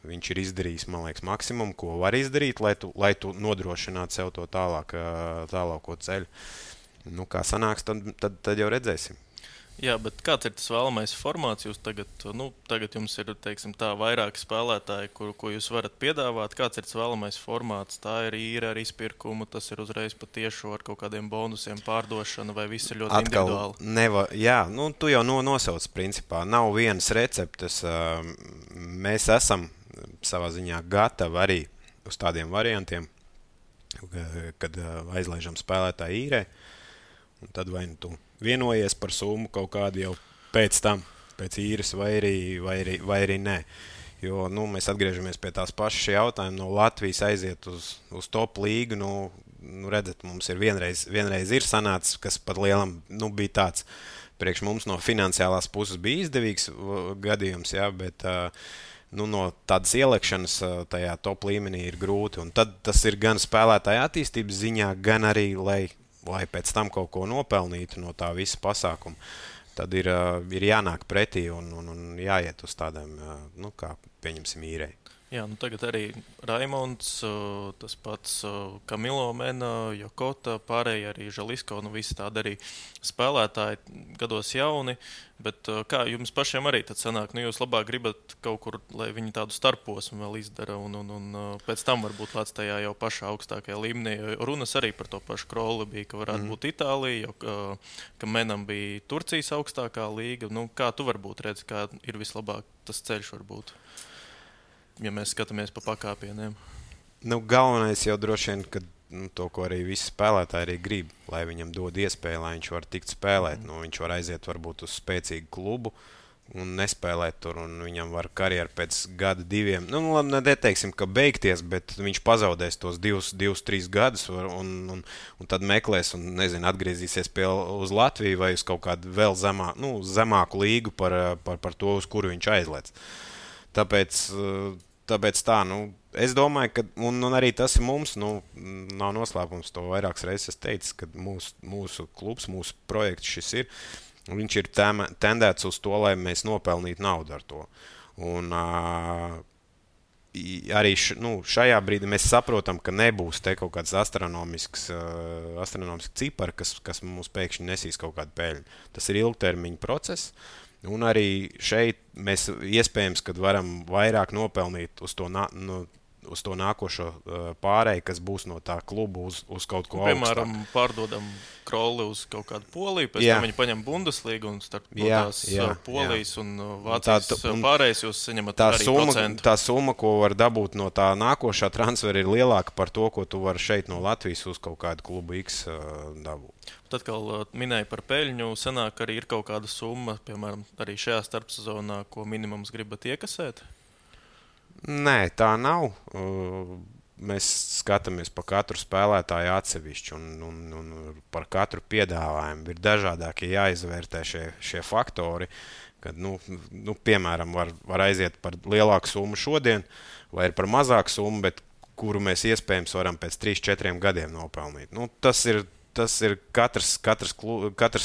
Viņš ir izdarījis, man liekas, maksimumu, ko var izdarīt, lai tu nodrošinātu sev to tālāko ceļu. Kā sanāks, tad jau redzēsim. Jā, bet kāds ir tas vēlamais formāts? Jūs tagad jums ir, teiksim, tā vairāki spēlētāji, ko jūs varat piedāvāt. Kāds ir tas vēlamais formāts? Tā ir īra ar izpirkumu, tas ir uzreiz patiešu ar kaut kādiem bonusiem pārdošana, vai viss ir ļoti individuāli? Jā, tu jau nosauc principā. Nav vienas receptes. Mēs esam savā ziņā gatavi arī uz tādiem variantiem, kad aizlaižam spēlētāju īrē. Un tad vai tu vienojies par summu kaut kādu jau pēc tam, pēc īres, vai arī nē. Jo mēs atgriežamies pie tās pašas jautājuma. No Latvijas aiziet uz top līgu. Redzat, mums ir vienreiz ir sanācis, kas pat lielam bija tāds. Priekš mums no finansiālās puses bija izdevīgs gadījums, jā, bet no tādas ielekšanas tajā top līmenī ir grūti. Un tad tas ir gan spēlētāja attīstības ziņā, gan arī, lai pēc tam kaut ko nopelnītu no tā visa pasākuma. Tad ir jānāk pretī un jāiet uz tādām, kā pieņemsim īrei. Jā, tagad arī Raimonds, tas pats Kamilo Mena, Jokota, pārējie arī Žalisko, visi tādi arī spēlētāji, gados jauni, bet kā jums pašiem arī tad sanāk, jūs labāk gribat kaut kur, lai viņi tādu starposmu vēl izdara un pēc tam varbūt lēc tajā jau pašā augstākajā līmenī, jo runas arī par to pašu Krolli bija, ka varētu būt Itālija, ka Menam bija Turcijas augstākā līga, kā tu varbūt redzi, kā ir vislabāk tas ceļš varbūt? Ja mēs skatāmies pa pakāpieniem. Galvenais jau droši vien, ka to, ko arī visi spēlētāji arī grib, lai viņam dod iespēju, lai viņš var tikt spēlēt. Viņš var aiziet varbūt uz spēcīgu klubu un nespēlēt tur, un viņam var karjeru pēc gada, 2. Neteiksim, ka beigties, bet viņš pazaudēs tos 2-3 gadus un tad meklēs un, atgriezīsies uz Latviju vai uz kaut kādu vēl zemāku līgu par to, uz kuru viņš aizlēc. Tāpēc tā, es domāju, ka, un arī tas ir mums, nav noslēpums, to vairākas reizes teicis, ka mūsu klubs, mūsu projekts šis ir, viņš ir tendēts uz to, lai mēs nopelnītu naudu ar to. Un arī šajā brīdī mēs saprotam, ka nebūs te kaut kāds astronomisks cipari, kas mums pēkšņi nesīs kaut kādu peļņu. Tas ir ilgtermiņa process. Un arī šeit mēs iespējams, kad varam vairāk nopelnīt uz to nākošo pārēju, kas būs no tā kluba uz kaut ko augstāk. Piemēram, pārdodam Krolli uz kaut kādu Poliju, pēc tam viņi paņem Bundeslīgu un starp tās Polijas un Vācijas pārējais jūs saņemat arī procentu. Tā summa, ko var dabūt no tā nākošā transfera, ir lielāka par to, ko tu vari šeit no Latvijas uz kaut kādu klubu X dabūt. Tad, kā minēja par peļņu, sanāk arī ir kaut kāda summa, piemēram, arī šajā starpsezonā, ko minimums gribat iekasēt? Nē, tā nav. Mēs skatāmies par katru spēlētāju atsevišķi un par katru piedāvājumu. Ir dažādākie jāizvērtē šie faktori, kad, piemēram, var aiziet par lielāku summu šodien vai par mazāku summu, bet kuru mēs iespējams varam pēc 3-4 gadiem nopelnīt. Tas ir katrs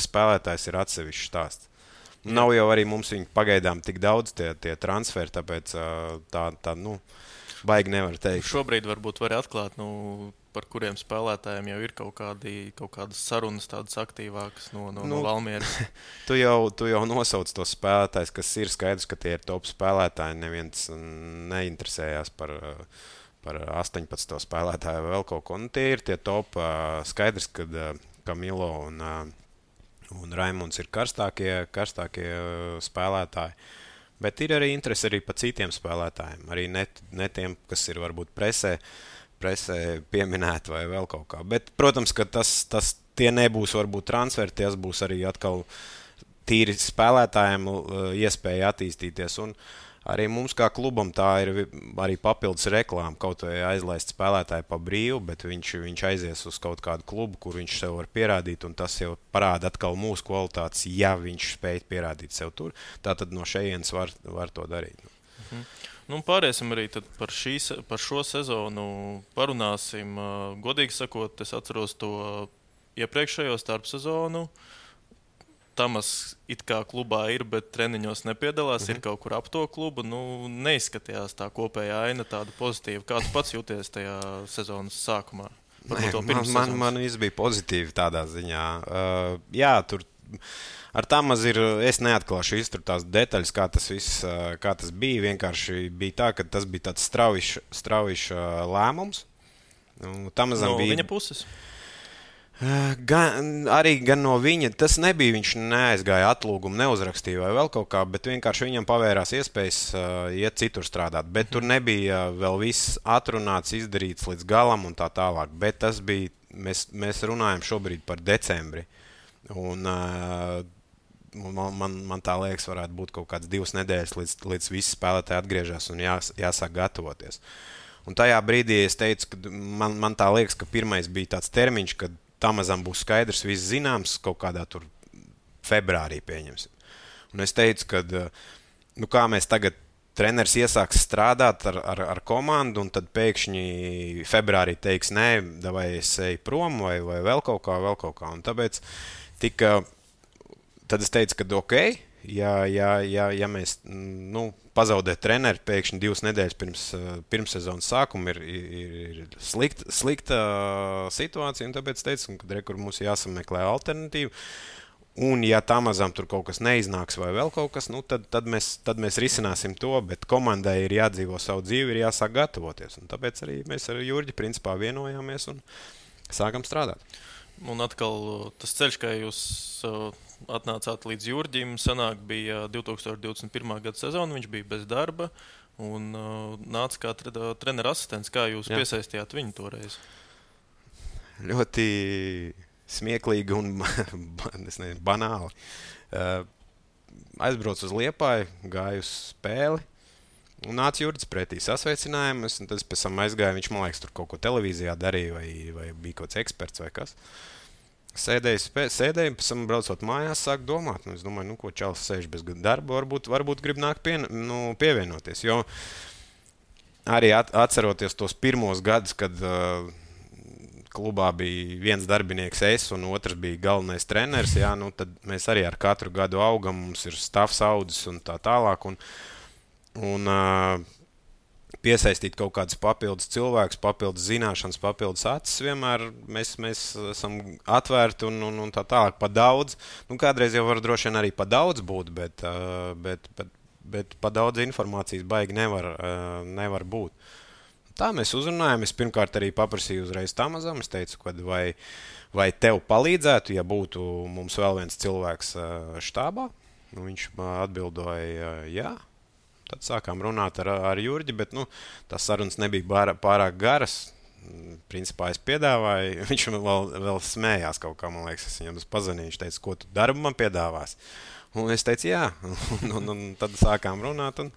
spēlētājs ir atsevišķs stāsts. Nav jau arī mums viņi pagaidām tik daudz tie transferi, tāpēc tā baigi nevar teikt. Šobrīd varbūt var atklāt, par kuriem spēlētājiem jau ir kaut kādas sarunas tādas aktīvākas no Valmieras. Tu jau nosauc tos spēlētājus, kas ir skaidrs, ka tie ir top spēlētāji. Neviens neinteresējās par 18 spēlētāju vai vēl kaut ko. Tie ir tie top. Skaidrs, kad Kamilo un Raimunds ir karstākie spēlētāji. Bet ir arī interesi arī par citiem spēlētājiem. Arī ne tiem, kas ir varbūt presē pieminēti vai vēl kaut kā. Bet, protams, ka tie nebūs varbūt transferi, tie būs arī atkal tīri spēlētājiem iespēja attīstīties. Un arī mums kā klubam tā ir arī papildus reklāma. Kaut vai aizlaist spēlētāju pa brīvu, bet viņš aizies uz kaut kādu klubu, kur viņš sev var pierādīt, un tas jau parāda atkal mūsu kvalitātes, ja viņš spēj pierādīt sev tur. Tātad no šejienes var to darīt. Pāriesim arī par šo sezonu parunāsim. Godīgi sakot, es atceros to iepriekšējo starpsezonu. Tamas it kā klubā ir, bet treniņos nepiedalās, ir kaut kur ap to klubu. Neizskatījās tā kopējā aina tāda pozitīva. Kā tu pats jūties tajā sezonas sākumā? Man viss bija pozitīvi tādā ziņā. Jā, tur ar Tamas es neatklāšu iztur tās detaļas, kā tas bija. Vienkārši bija tā, ka tas bija tāds straujišs lēmums. No viņa puses? Gan no viņa. Tas nebija, viņš neaizgāja atlūgumu, neuzrakstīja vai vēl kaut kā, bet vienkārši viņam pavērās iespējas iet citur strādāt. Bet tur nebija vēl viss atrunāts, izdarīts līdz galam un tā tālāk. Bet tas bija, mēs runājam šobrīd par decembri. Un man tā liekas, varētu būt kaut kāds 2 nedēļas, līdz visi spēlētāji atgriežas un jāsāk gatavoties. Un tajā brīdī es teicu, ka man tā liekas, ka pirmais bija tāds termiņš, kad Tamazam būs skaidrs, viss zināms, kaut kādā tur februārī pieņemsim. Un es teicu, ka kā mēs tagad treneris iesāks strādāt ar komandu, un tad pēkšņi februārī teiks, nē, vai es eju prom, vai vēl kaut kā. Un tāpēc tad es teicu, ka ok, ja mēs pazaudēt treneri pēkšņi 2 nedēļas pirms sezonas sākuma ir slikta situācija, un tāpēc teicu, ka mums jāsameklē alternatīva. Un ja Tamazam tur kaut kas neiznāks vai vēl kaut kas, tad mēs risināsim to, bet komandai ir jādzīvo savu dzīvi, ir jāsāk gatavoties. Un tāpēc arī mēs ar Jurģi principā vienojāmies un sākam strādāt. Un atkal tas ceļš, kā jūs atnācāt līdz Jurģim, sanāk bija 2021. Gada sezona, viņš bija bez darba un nāca kā trenera asistents. Kā jūs piesaistījāt viņu toreiz? Ļoti smieklīgi un banāli. Aizbraucu uz Liepāju, gāju uz spēli un nāca Jurģis pretī sasveicinājumus, un tad pēc tam aizgāju, viņš, man liekas, tur kaut ko televīzijā darīja vai bija kaut kāds eksperts vai kas. Sēdēju, pēc tam braucot mājās, sāku domāt. Es domāju, ko čalis sēž bez darba, varbūt grib nākt pievienoties. Jo arī atceroties tos pirmos gadus, kad klubā bija viens darbinieks es un otrs bija galvenais treneris, tad mēs arī ar katru gadu augam, mums ir stāvs audzis un tā tālāk. Un piesaistīt kaut kādus papildus cilvēkus, papildus zināšanas, papildus acis. Vienmēr mēs esam atvērti un tā tālāk pa daudz. Kādreiz jau var droši vien arī pa daudz būt, bet pa daudz informācijas baigi nevar būt. Tā mēs uzrunājam. Es pirmkārt arī paprasīju uzreiz Tamazam. Es teicu, vai tev palīdzētu, ja būtu mums vēl viens cilvēks štābā. Viņš atbildoja, jā. Tad sākām runāt ar Jurģi, bet tās sarunas nebija pārāk garas. Principā es piedāvāju, viņš vēl smējās kaut kā, man liekas, es viņam pazvanīju, viņš teica, ko tu darbu man piedāvās? Un es teicu, jā. Un tad sākām runāt un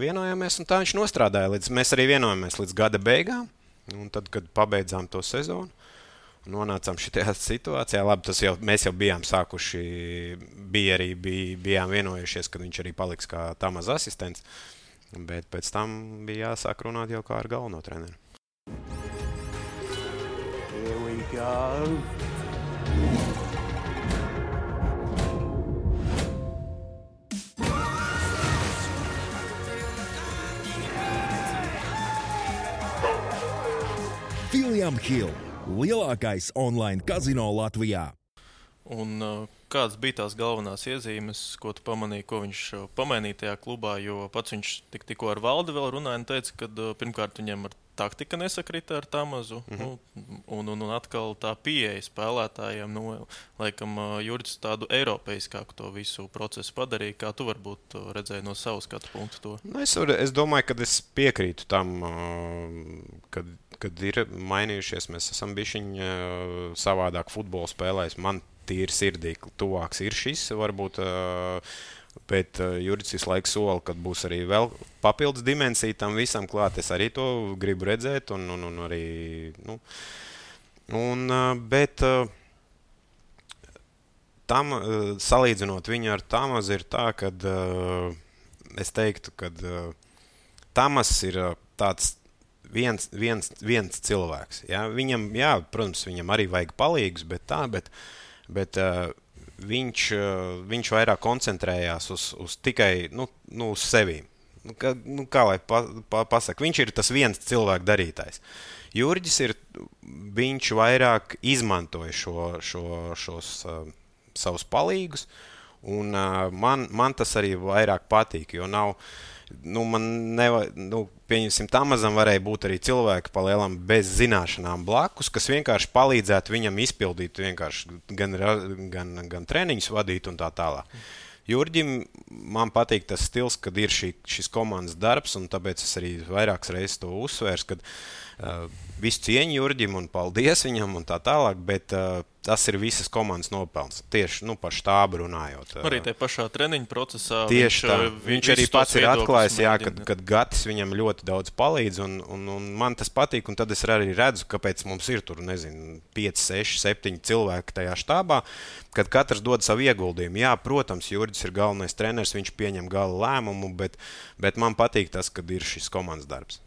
vienojāmies, un tā viņš nostrādāja. Mēs arī vienojāmies līdz gada beigām, un tad, kad pabeidzām to sezonu, nonācām šajā situācijā. Labi, mēs jau bijām sākuši, bijām vienojušies, ka viņš arī paliks kā Tamaz asistents, bet pēc tam bija jāsāk runāt jau kā ar galveno treneru. Here we go. William Hill, lielākais online kazino Latvijā. Un kādas bija tās galvenās iezīmes, ko tu pamanīji, ko viņš pamainīja tajā klubā? Jo pats viņš tikko ar Valdi vēl runāja un teica, ka pirmkārt viņam ar taktika nesakrita ar Tamazu. Un atkal tā pieeja spēlētājiem, laikam Jurģis tādu eiropeiskāku to visu procesu padarīja. Kā tu varbūt redzēji no savu skatu punktu to? Es domāju, ka es piekrītu tam, kad ir mainījušies. Mēs esam bišķiņ savādāk futbolu spēlējis. Man tīri sirdī tuvāks ir šis, varbūt, bet Jurģis visu laiku sola, kad būs arī vēl papildus dimensija tam visam klāt. Es arī to gribu redzēt un arī, bet tam, salīdzinot viņu ar Tamazu, ir tā, kad es teiktu, ka Tamas ir tāds viens cilvēks. Ja? Viņam, protams, viņam arī vajag palīgus, bet viņš vairāk koncentrējās uz tikai uz sevīm. Kā lai pasaka, viņš ir tas viens cilvēks darītājs. Jurģis viņš vairāk izmantoja šos savus palīgus, un man tas arī vairāk patīk, jo nav. Pieņemsim, Tamazam varēja būt arī cilvēki palielam bez zināšanām blakus, kas vienkārši palīdzētu viņam izpildīt vienkārši gan treniņus vadīt un tā tālāk. Jurģim man patīk tas stils, kad ir šis komandas darbs, un tāpēc es arī vairākas reizes to uzsvērs, kad visu cieņu Jurģim un paldies viņam un tā tālāk, bet tas ir visas komandas nopelns. Tieši par štābu runājot. Arī tajā pašā treniņu procesā. Tieši tā. Viņš arī pats ir atklājis, kad Gatis viņam ļoti daudz palīdz, un man tas patīk, un tad es arī redzu, kāpēc mums ir tur, 5, 6, 7 cilvēki tajā štābā, kad katrs dod savu ieguldījumu. Jā, protams, Jurģis ir galvenais treneris, viņš pieņem gala lēmumu, bet man patīk tas, kad ir šis komandas darbs.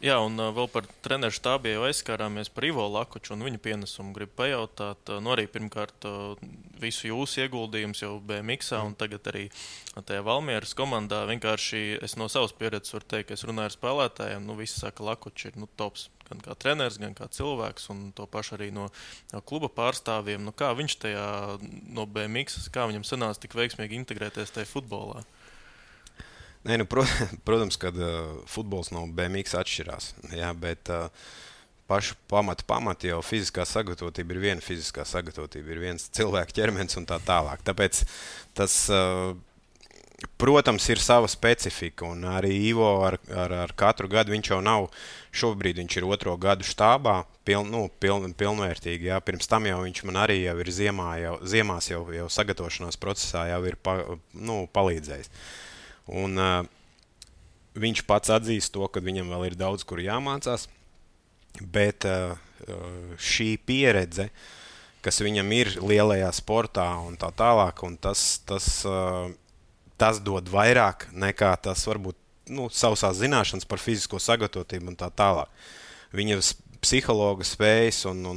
Jā, un vēl par treneru štābu jau aizskārāmies par Ivo Lakuču un viņa pienesumu. Gribu pajautāt, arī pirmkārt visu jūsu ieguldījumus jau BMX-ā un tagad arī tajā Valmieras komandā. Vienkārši es no savas pieredzes varu teikt, ka es runāju ar spēlētājiem, visi saka, Lakuči ir tops gan kā treneris, gan kā cilvēks, un to pašu arī no kluba pārstāvjiem. Kā viņš tajā no BMX, kā viņam sanāca tik veiksmīgi integrēties tajā futbolā? Nē, protams, kad futbols no BMX atšķirās, bet pašu pamati jau fiziskā sagatavotība ir viena fiziskā sagatavotība, ir viens cilvēka ķermenis un tā tālāk. Tāpēc tas, protams, ir sava specifika, un arī Ivo ar katru gadu viņš jau nav, šobrīd viņš ir 2. gadu štābā, pilnvērtīgi. Jā. Pirms tam jau viņš man arī jau ir ziemās jau sagatavošanās procesā jau ir palīdzējis. Un viņš pats atzīst to, ka viņam vēl ir daudz, kur jāmācās, bet šī pieredze, kas viņam ir lielajā sportā un tā tālāk, un tas dod vairāk nekā tas varbūt sausās zināšanas par fizisko sagatavotību un tā tālāk. Viņa psihologa spējas un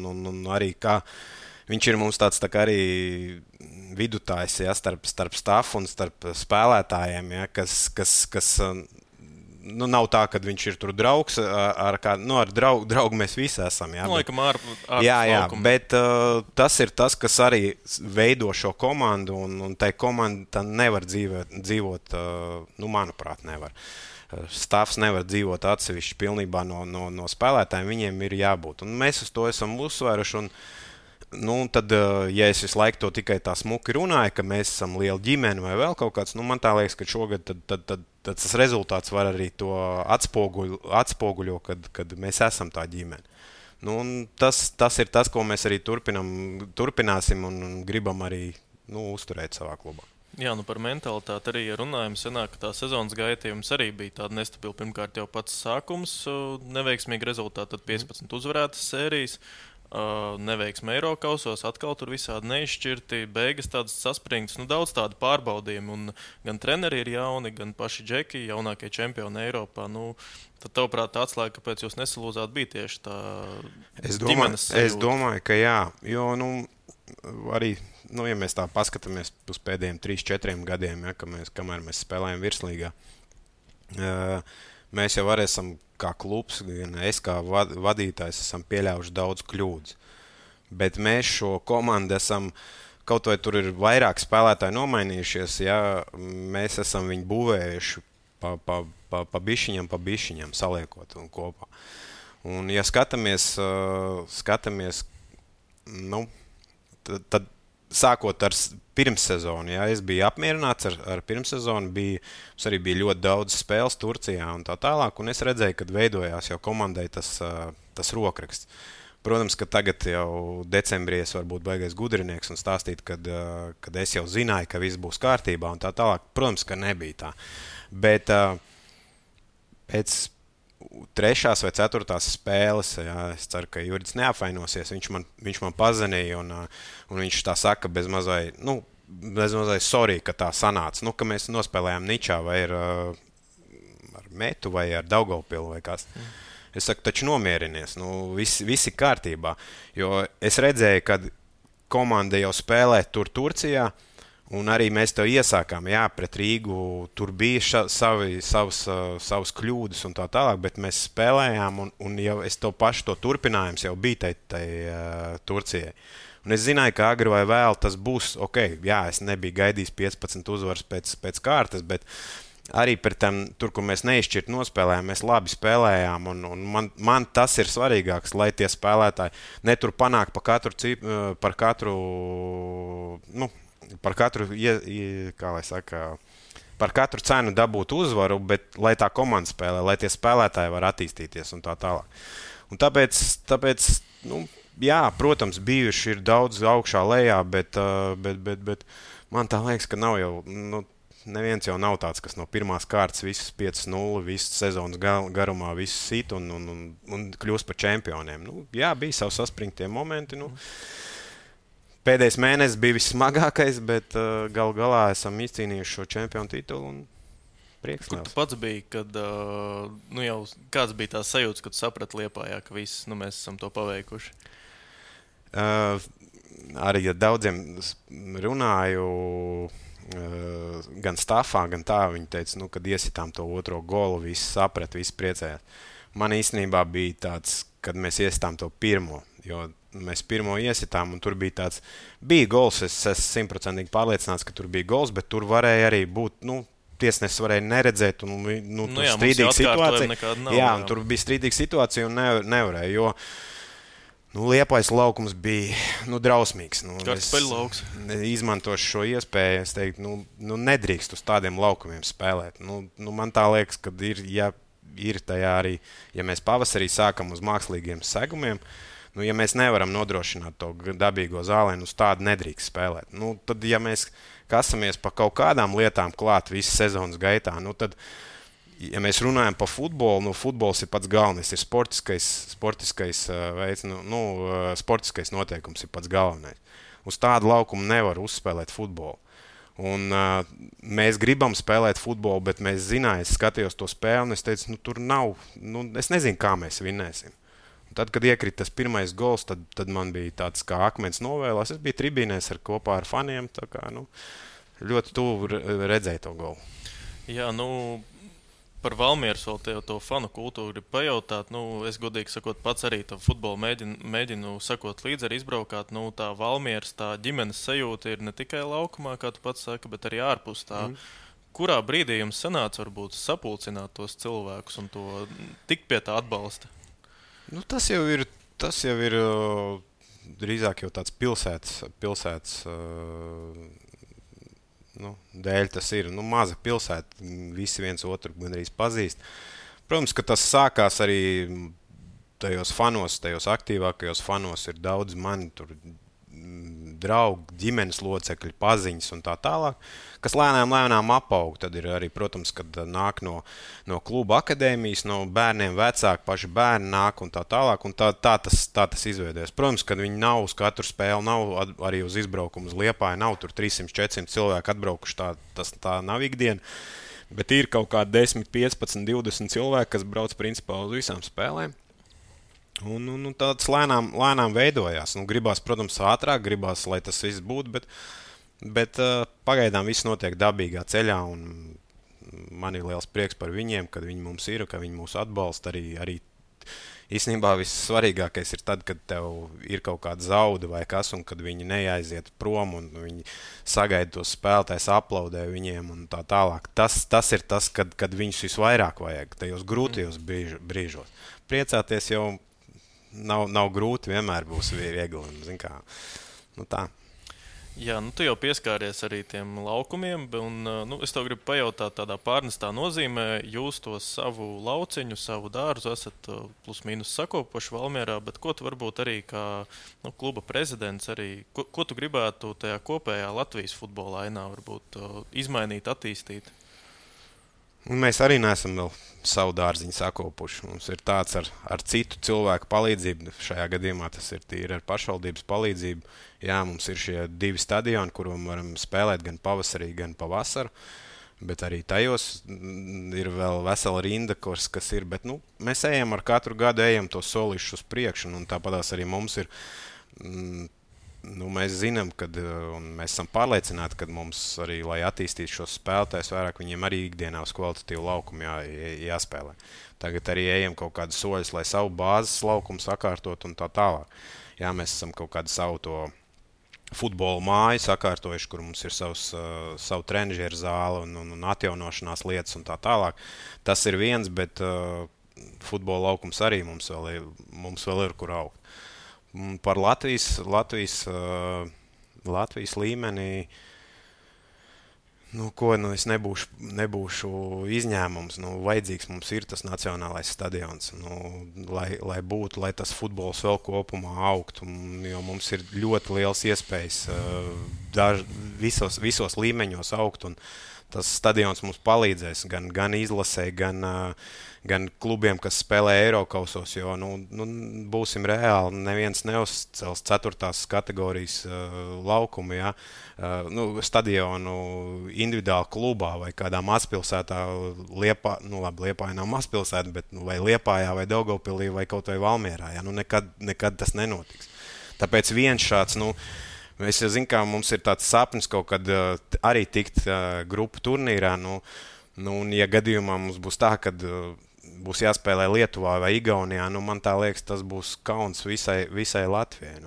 arī kā viņš ir mums tāds tā kā arī vidutājs, starp stafu un starp spēlētājiem, kas nav tā, ka viņš ir tur draugs, ar draugu mēs visi esam. Jā, laikam jā, bet tas ir tas, kas arī veido šo komandu, un tai komanda nevar dzīvot, manuprāt, nevar. Stāvs nevar dzīvot atsevišķi pilnībā no spēlētājiem, viņiem ir jābūt. Un mēs uz to esam uzsvēruši. Tad, ja es visu laiku to tikai tā smuki runāju, ka mēs esam liela ģimene vai vēl kaut kāds, man tā liekas, ka šogad tad tas rezultāts var arī to atspoguļo, kad mēs esam tā ģimene. Tas ir tas, ko mēs arī turpināsim un gribam arī uzturēt savā klubā. Jā, par mentalitāti arī runājam. Senāk, ka tā sezonas gaita jums arī bija tāda nestabila. Pirmkārt, jau pats sākums, neveiksmīgi rezultāti, tad 15 uzvarētas sērijas. Neveiksme Eirokausos, atkal tur visādi neizšķirti, beigas tādas saspringtas, daudz tādu pārbaudījumu, un gan treneri ir jauni, gan paši džeki, jaunākie čempioni Eiropā. Tad, tavuprāt, tā atslēga, kāpēc jūs nesalūzāt, bija tieši tā ģimenes sajūta? Es domāju, ka jā, jo, arī, ja mēs tā paskatāmies uz pēdējiem 3-4 gadiem, ja, kamēr mēs spēlējam virslīgā, mēs jau arī esam kā klubs, gan es kā vadītājs esam pieļāvuši daudz kļūdas. Bet mēs šo komandu esam, kaut vai tur ir vairāk spēlētāji nomainījušies, ja mēs esam viņu būvējuši pa bišķiņam saliekot un kopā. Un ja skatāmies, tad sākot ar pirmssezonu, ja es biju apmierināts ar pirmssezonu, mums arī bija ļoti daudz spēles Turcijā un tā tālāk, un es redzēju, kad veidojās jau komandai tas rokraksts. Protams, ka tagad jau decembrī es varu būt baigais gudrinieks un stāstīt, kad es jau zināju, ka viss būs kārtībā un tā tālāk. Protams, ka nebija tā. Bet pēc 3. vai 4. spēles, jā, es ceru, ka Juridis neapvainosies, viņš man pazvanīja un viņš tā saka bez mazai sorry, ka tā sanāca, ka mēs nospēlējām Ničā vai ar Metu vai ar Daugavpilu vai kas. Es saku, taču nomierinies, visi kārtībā, jo es redzēju, kad komanda jau spēlē tur Turcijā, un arī mēs to iesākām, jā, pret Rīgu, tur bija savas kļūdas un tā tālāk, bet mēs spēlējām, un jau es to pašu to turpinājums jau bija tai Turcijai. Un es zināju, ka agri vai vēl tas būs, jā, es nebiju gaidījis 15 uzvaras pēc kārtas, bet arī par tur, kur mēs neizšķirt nospēlējām, mēs labi spēlējām, un man tas ir svarīgāks, lai tie spēlētāji netur panāk par katru cenu dabūt uzvaru, bet lai tā komanda spēlē, lai tie spēlētāji var attīstīties un tā tālāk. Un tāpēc jā, protams, bijuši ir daudz augšā lejā, bet man tā liekas, ka nav jau, neviens jau nav tāds, kas no pirmās kārtas visus 5-0, visu sezonas garumā visu sit un kļūst par čempioniem. Jā, bija savi saspringtie momenti, Pēdējais mēnesis bija vissmagākais, bet galā esam izcīnījuši šo čempionu titulu un prieks. Kur tu pats biji, kad jau kāds bija tās sajūtas, kad tu saprati Liepājā, ka viss, mēs esam to paveikuši? Arī ja daudziem runāju gan stafā, gan tā, viņi teica, kad iesitām to otro golu, visi saprat, visi priecējās. Man īstenībā bija tāds, kad mēs iesitām to pirmo, jo mēs pirmo iesitām, un tur bija gols, es esmu 100% pārliecināts, ka tur bija gols, bet tur varēja arī būt, tiesnesis varēja neredzēt, un strīdīga situācija. Jā, un tur bija strīdīga situācija, un nevarēja, jo Liepājas laukums bija drausmīgs. Kartupeļlauks. Izmantošu šo iespēju, es teiktu, nedrīkst uz tādiem laukumiem spēlēt. Man tā liekas, ka ir tajā arī, ja mēs pavasarī sākam uz mākslīgiem segumiem, ja mēs nevaram nodrošināt to dabīgo zālēnu, uz tādu nedrīkst spēlēt. Tad, ja mēs kasamies pa kaut kādām lietām klāt visas sezonas gaitā, tad, ja mēs runājam par futbolu, futbols ir pats galvenais, ir sportiskais veids, sportiskais noteikums ir pats galvenais. Uz tādu laukumu nevar uzspēlēt futbolu. Un mēs gribam spēlēt futbolu, bet mēs zinājām, es skatījos to spēli, un es teicu, tur nav, es nezinu, kā mēs vinnēsim. Tad, kad iekrita tas pirmais gols, tad man bija tāds kā akmens novēlās. Es biju tribīnēs kopā ar faniem, tā kā ļoti tuvu redzēju to golu. Jā, Par Valmieras vēl to fanu kultūru gribu pajautāt. Es godīgi sakot, pats arī tam futbolu mēģinu sakot līdzi, arī izbraukāt. Tā Valmieras, tā ģimenes sajūta ir ne tikai laukumā, kā tu pats saki, bet arī ārpus tā. Kurā brīdī jums sanāca varbūt sapulcināt tos cilvēkus un to tikt pie tā atbalsta? Tas jau ir drīzāk jau tāds pilsētas dēļ tas ir. Maza pilsēta, visi viens otru gandrīz pazīst. Protams, ka tas sākās arī tajos aktīvākajos fanos ir daudz mani tur draugi, ģimenes locekļi, paziņas un tā tālāk, kas lēnām apaug. Tad ir arī, protams, kad nāk no kluba akadēmijas, no bērniem vecāki, paši bērni nāk un tā tālāk, un tā tas izveidojas. Protams, kad viņi nav uz katru spēli, nav arī uz izbraukumu uz Liepāju, nav tur 300-400 cilvēki atbraukuši, tā nav ikdiena, bet ir kaut kādi 10, 15, 20 cilvēki, kas brauc principā uz visām spēlēm. Un tāds lēnām veidojās. Gribās, protams, ātrāk, gribās, lai tas viss būtu, bet pagaidām viss notiek dabīgā ceļā, un man ir liels prieks par viņiem, kad viņi mums ir, ka viņi mūs atbalsta. Arī īstenībā vissvarīgākais ir tad, kad tev ir kaut kāda zauda vai kas, un kad viņi neaiziet prom, un viņi sagaida tos spēlētājus, aplaudē viņiem un tā tālāk. Tas ir tas, kad viņus visvairāk vajag, tajos grūtajos brīžos. Priecāties jau nav grūti, vienmēr būs viegli. Zin kā, tā. Jā, tu jau pieskāries arī tiem laukumiem, un es tev gribu pajautāt tādā pārnestā nozīmē. Jūs to savu lauciņu, savu dārzu esat plus mīnus sakopoši Valmierā, bet ko tu varbūt arī kā kluba prezidents, arī, ko tu gribētu tajā kopējā Latvijas futbola ainā varbūt izmainīt, attīstīt? Un mēs arī neesam vēl savu dārziņu sakopuši. Mums ir tāds ar citu cilvēku palīdzību. Šajā gadījumā tas ir tīri ar pašvaldības palīdzību. Jā, mums ir šie 2 stadioni, kuros varam spēlēt gan pavasarī, gan pavasaru. Bet arī tajos ir vēl vesela rinda, kas ir. Bet, mēs ejam ar katru gadu, ejam to solīšu uz priekšu. Un tāpatās arī mums ir. Mēs zinām, un mēs esam pārliecināti, ka mums arī, lai attīstītu šos spēlētājus vairāk, viņiem arī ikdienā uz kvalitatīvu laukumu jāspēlē. Tagad arī ejam kaut kādus soļus, lai savu bāzes laukumu sakārtot un tā tālāk. Jā, mēs esam kaut kādu savu to futbola māju sakārtojuši, kur mums ir savu trenižieru zāli un atjaunošanās lietas un tā tālāk. Tas ir viens, bet futbola laukums arī mums vēl ir kur augt. Par Latvijas līmenī, es nebūšu izņēmums. Vajadzīgs mums ir tas nacionālais stadions, lai būtu, lai tas futbols vēl kopumā augtu. Jo mums ir ļoti liels iespējas visos līmeņos augt, un tas stadions mums palīdzēs gan izlasē, gan klubiem, kas spēlē Eirokausos, jo būsim reāli, neviens neuzcels 4. kategorijas laukumu, ja? Stadionu individuāli klubā vai kādā mazpilsētā, Liepāja nav mazpilsēta, bet vai Liepājā vai Daugavpilī vai kaut vai Valmierā, ja? Nekad tas nenotiks. Tāpēc viens šāds, mēs jau zinām, kā mums ir tāds sapnis kaut kad arī tikt grupu turnīrā, un ja gadījumā mums būs tā, kad būs jāspēlē Lietuvā vai Igaunijā, man tā liekas, tas būs kauns visai Latvijai.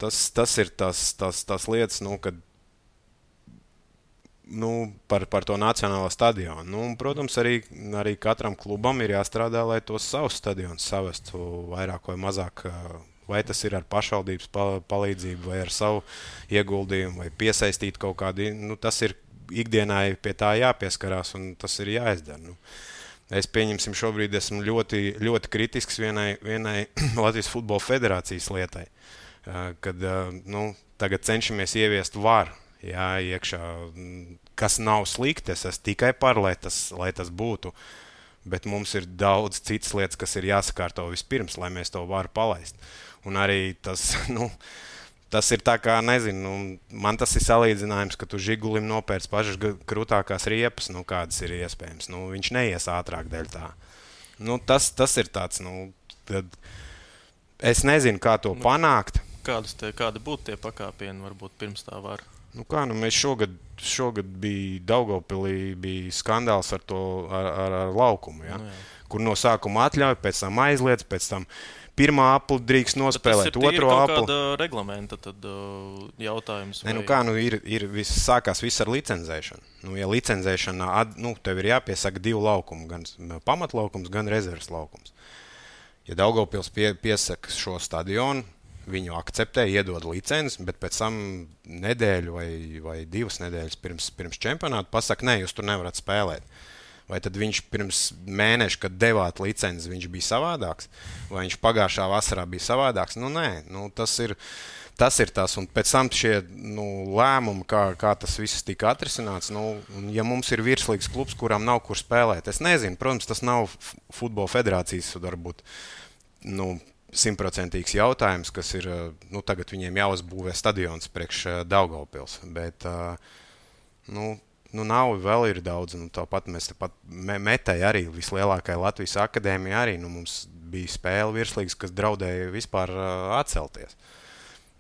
Tas ir tas lietas, kad par to nacionālo stadionu. Protams, arī katram klubam ir jāstrādā, lai tos savus stadionus savestu vairāk vai mazāk, vai tas ir ar pašvaldības palīdzību, vai ar savu ieguldījumu, vai piesaistīt kaut kādu, tas ir ikdienai pie tā jāpieskarās, un tas ir jāizdara. Es pieņemsim šobrīd esmu ļoti, ļoti kritisks vienai Latvijas Futbola Federācijas lietai, kad tagad cenšamies ieviest varu iekšā, kas nav slikti, es esmu tikai par, lai tas būtu, bet mums ir daudz citas lietas, kas ir jāsakārto vispirms, lai mēs to varu palaist. Un arī tas ir tā kā, nezinu, man tas ir salīdzinājums, ka tu Žigulim nopērc pašas krūtākās riepas, kādas ir iespējams. Viņš neies ātrāk dēļ tā. Tas ir tāds, tad es nezinu, kā to panākt. Kādi būtu tie pakāpieni, varbūt pirms tā var? Nu kā, mēs šogad bija Daugavpilī, bija skandāls ar to ar laukumu, ja? Kur no sākuma atļauj, pēc tam aizliedz, pēc tam pirmā apli drīkst nospēlēt, otro apli. Tas ir kāda reglamenta tad, jautājums? Vai... Sākās viss ar licencēšanu. Ja licencēšana, tev ir jāpiesaka 2 laukumi, gan pamatlaukums, gan rezerves laukums. Ja Daugavpils piesaka šo stadionu, viņu akceptē, iedod licenci, bet pēc tam nedēļu vai 2 nedēļas pirms čempionāta pasaka, nē, jūs tur nevarat spēlēt. Vai tad viņš pirms mēneša, kad devāt licenci, viņš bija savādāks? Vai viņš pagājušā vasarā bija savādāks? Nē, tas ir tas. Un pēc tam šie lēmumi, kā tas viss tika atrisināts, ja mums ir virslīgas klubs, kuram nav kur spēlēt, es nezinu, protams, tas nav futbola federācijas varbūt, 100% jautājums, kas ir, tagad viņiem jāuzbūvē stadions priekš Daugavpils, bet, nav, vēl ir daudz, tāpat mēs Metei arī, vislielākai Latvijas akadēmija arī, mums bija spēle virslīgas, kas draudēja vispār atcelties.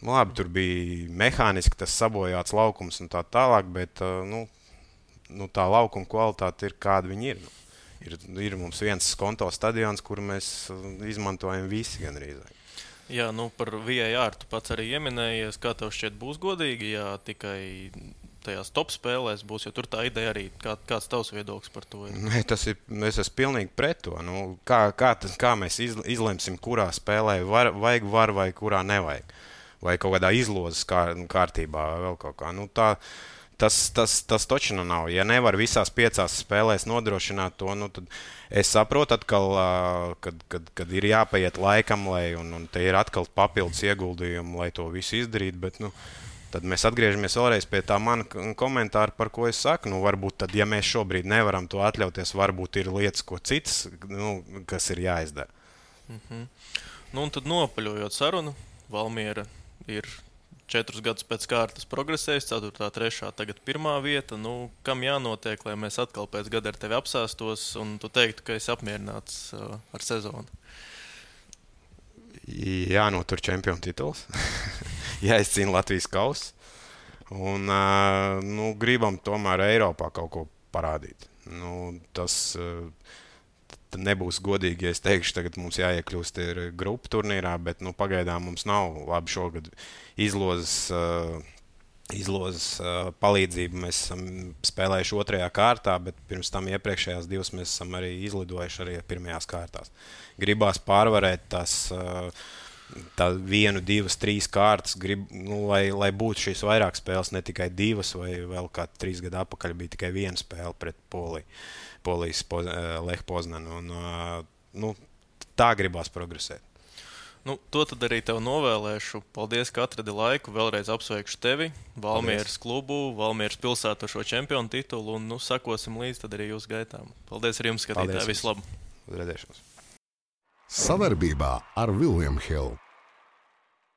Labi, tur bija mehāniski tas sabojāts laukums un tā tālāk, bet, tā laukuma kvalitāte ir, kāda viņi ir. Ir mums viens konto stadions, kuru mēs izmantojam visi gandrīz. Jā, par VAR tu pats arī ieminējies, kā tev šķiet būs godīgi, ja tikai tajās top spēlēs būs, jo tur tā ideja arī, kāds tavs viedoklis par to ir? Nē, es esmu pilnīgi pret to. Kā mēs izlemsim, kurā spēlē vajag var vai kurā nevajag. Vai kaut kādā izlozes kārtībā vēl kaut kā. Tas taču nav. Ja nevar visās 5 spēlēs nodrošināt to, tad es saprotu atkal, kad ir jāpaiet laikam, un te ir atkal papildus ieguldījumi, lai to visu izdarītu, bet, tad mēs atgriežamies vēlreiz pie tā mana komentāra, par ko es saku. Varbūt tad, ja mēs šobrīd nevaram to atļauties, varbūt ir lietas, ko citas, kas ir jāizdara. Un tad nopaļojot sarunu, Valmiera ir 4 gadus pēc kārtas progresējis, 4., 3., tagad 1. vieta. Kam jānotiek, lai mēs atkal pēc gada ar tevi apsēstos un tu teiktu, ka esi apmierināts ar sezonu? Jānotur čempionu tituls. Jāizcīna Latvijas kauss. Un gribam tomēr Eiropā kaut ko parādīt. Tas nebūs godīgi, ja es teikšu, tagad mums jāiekļūst grupu turnīrā, bet pagaidām mums nav labi šogad izlozes palīdzību. Mēs esam spēlējuši 2. kārtā, bet pirms tam iepriekšējās 2 mēs esam arī izlidojuši arī 1. kārtās. Gribās pārvarēt tās 1, 2, 3 kārtas, lai būtu šīs vairāk spēles, ne tikai 2 vai vēl kā 3 gadu atpakaļ bija tikai 1 spēle pret Polijas Lech Poznanu. Tā gribās progresēt. To tad arī tev novēlēšu. Paldies, ka atradi laiku. Vēlreiz apsveikšu tevi, Valmieras klubu, Valmieras pilsētu šo čempionu titulu un sekosim līdz tad arī jūsu gaitām. Paldies arī jums, skatītāji. Visu labu! Uz redzēšanos! Savarbībā ar William Hill.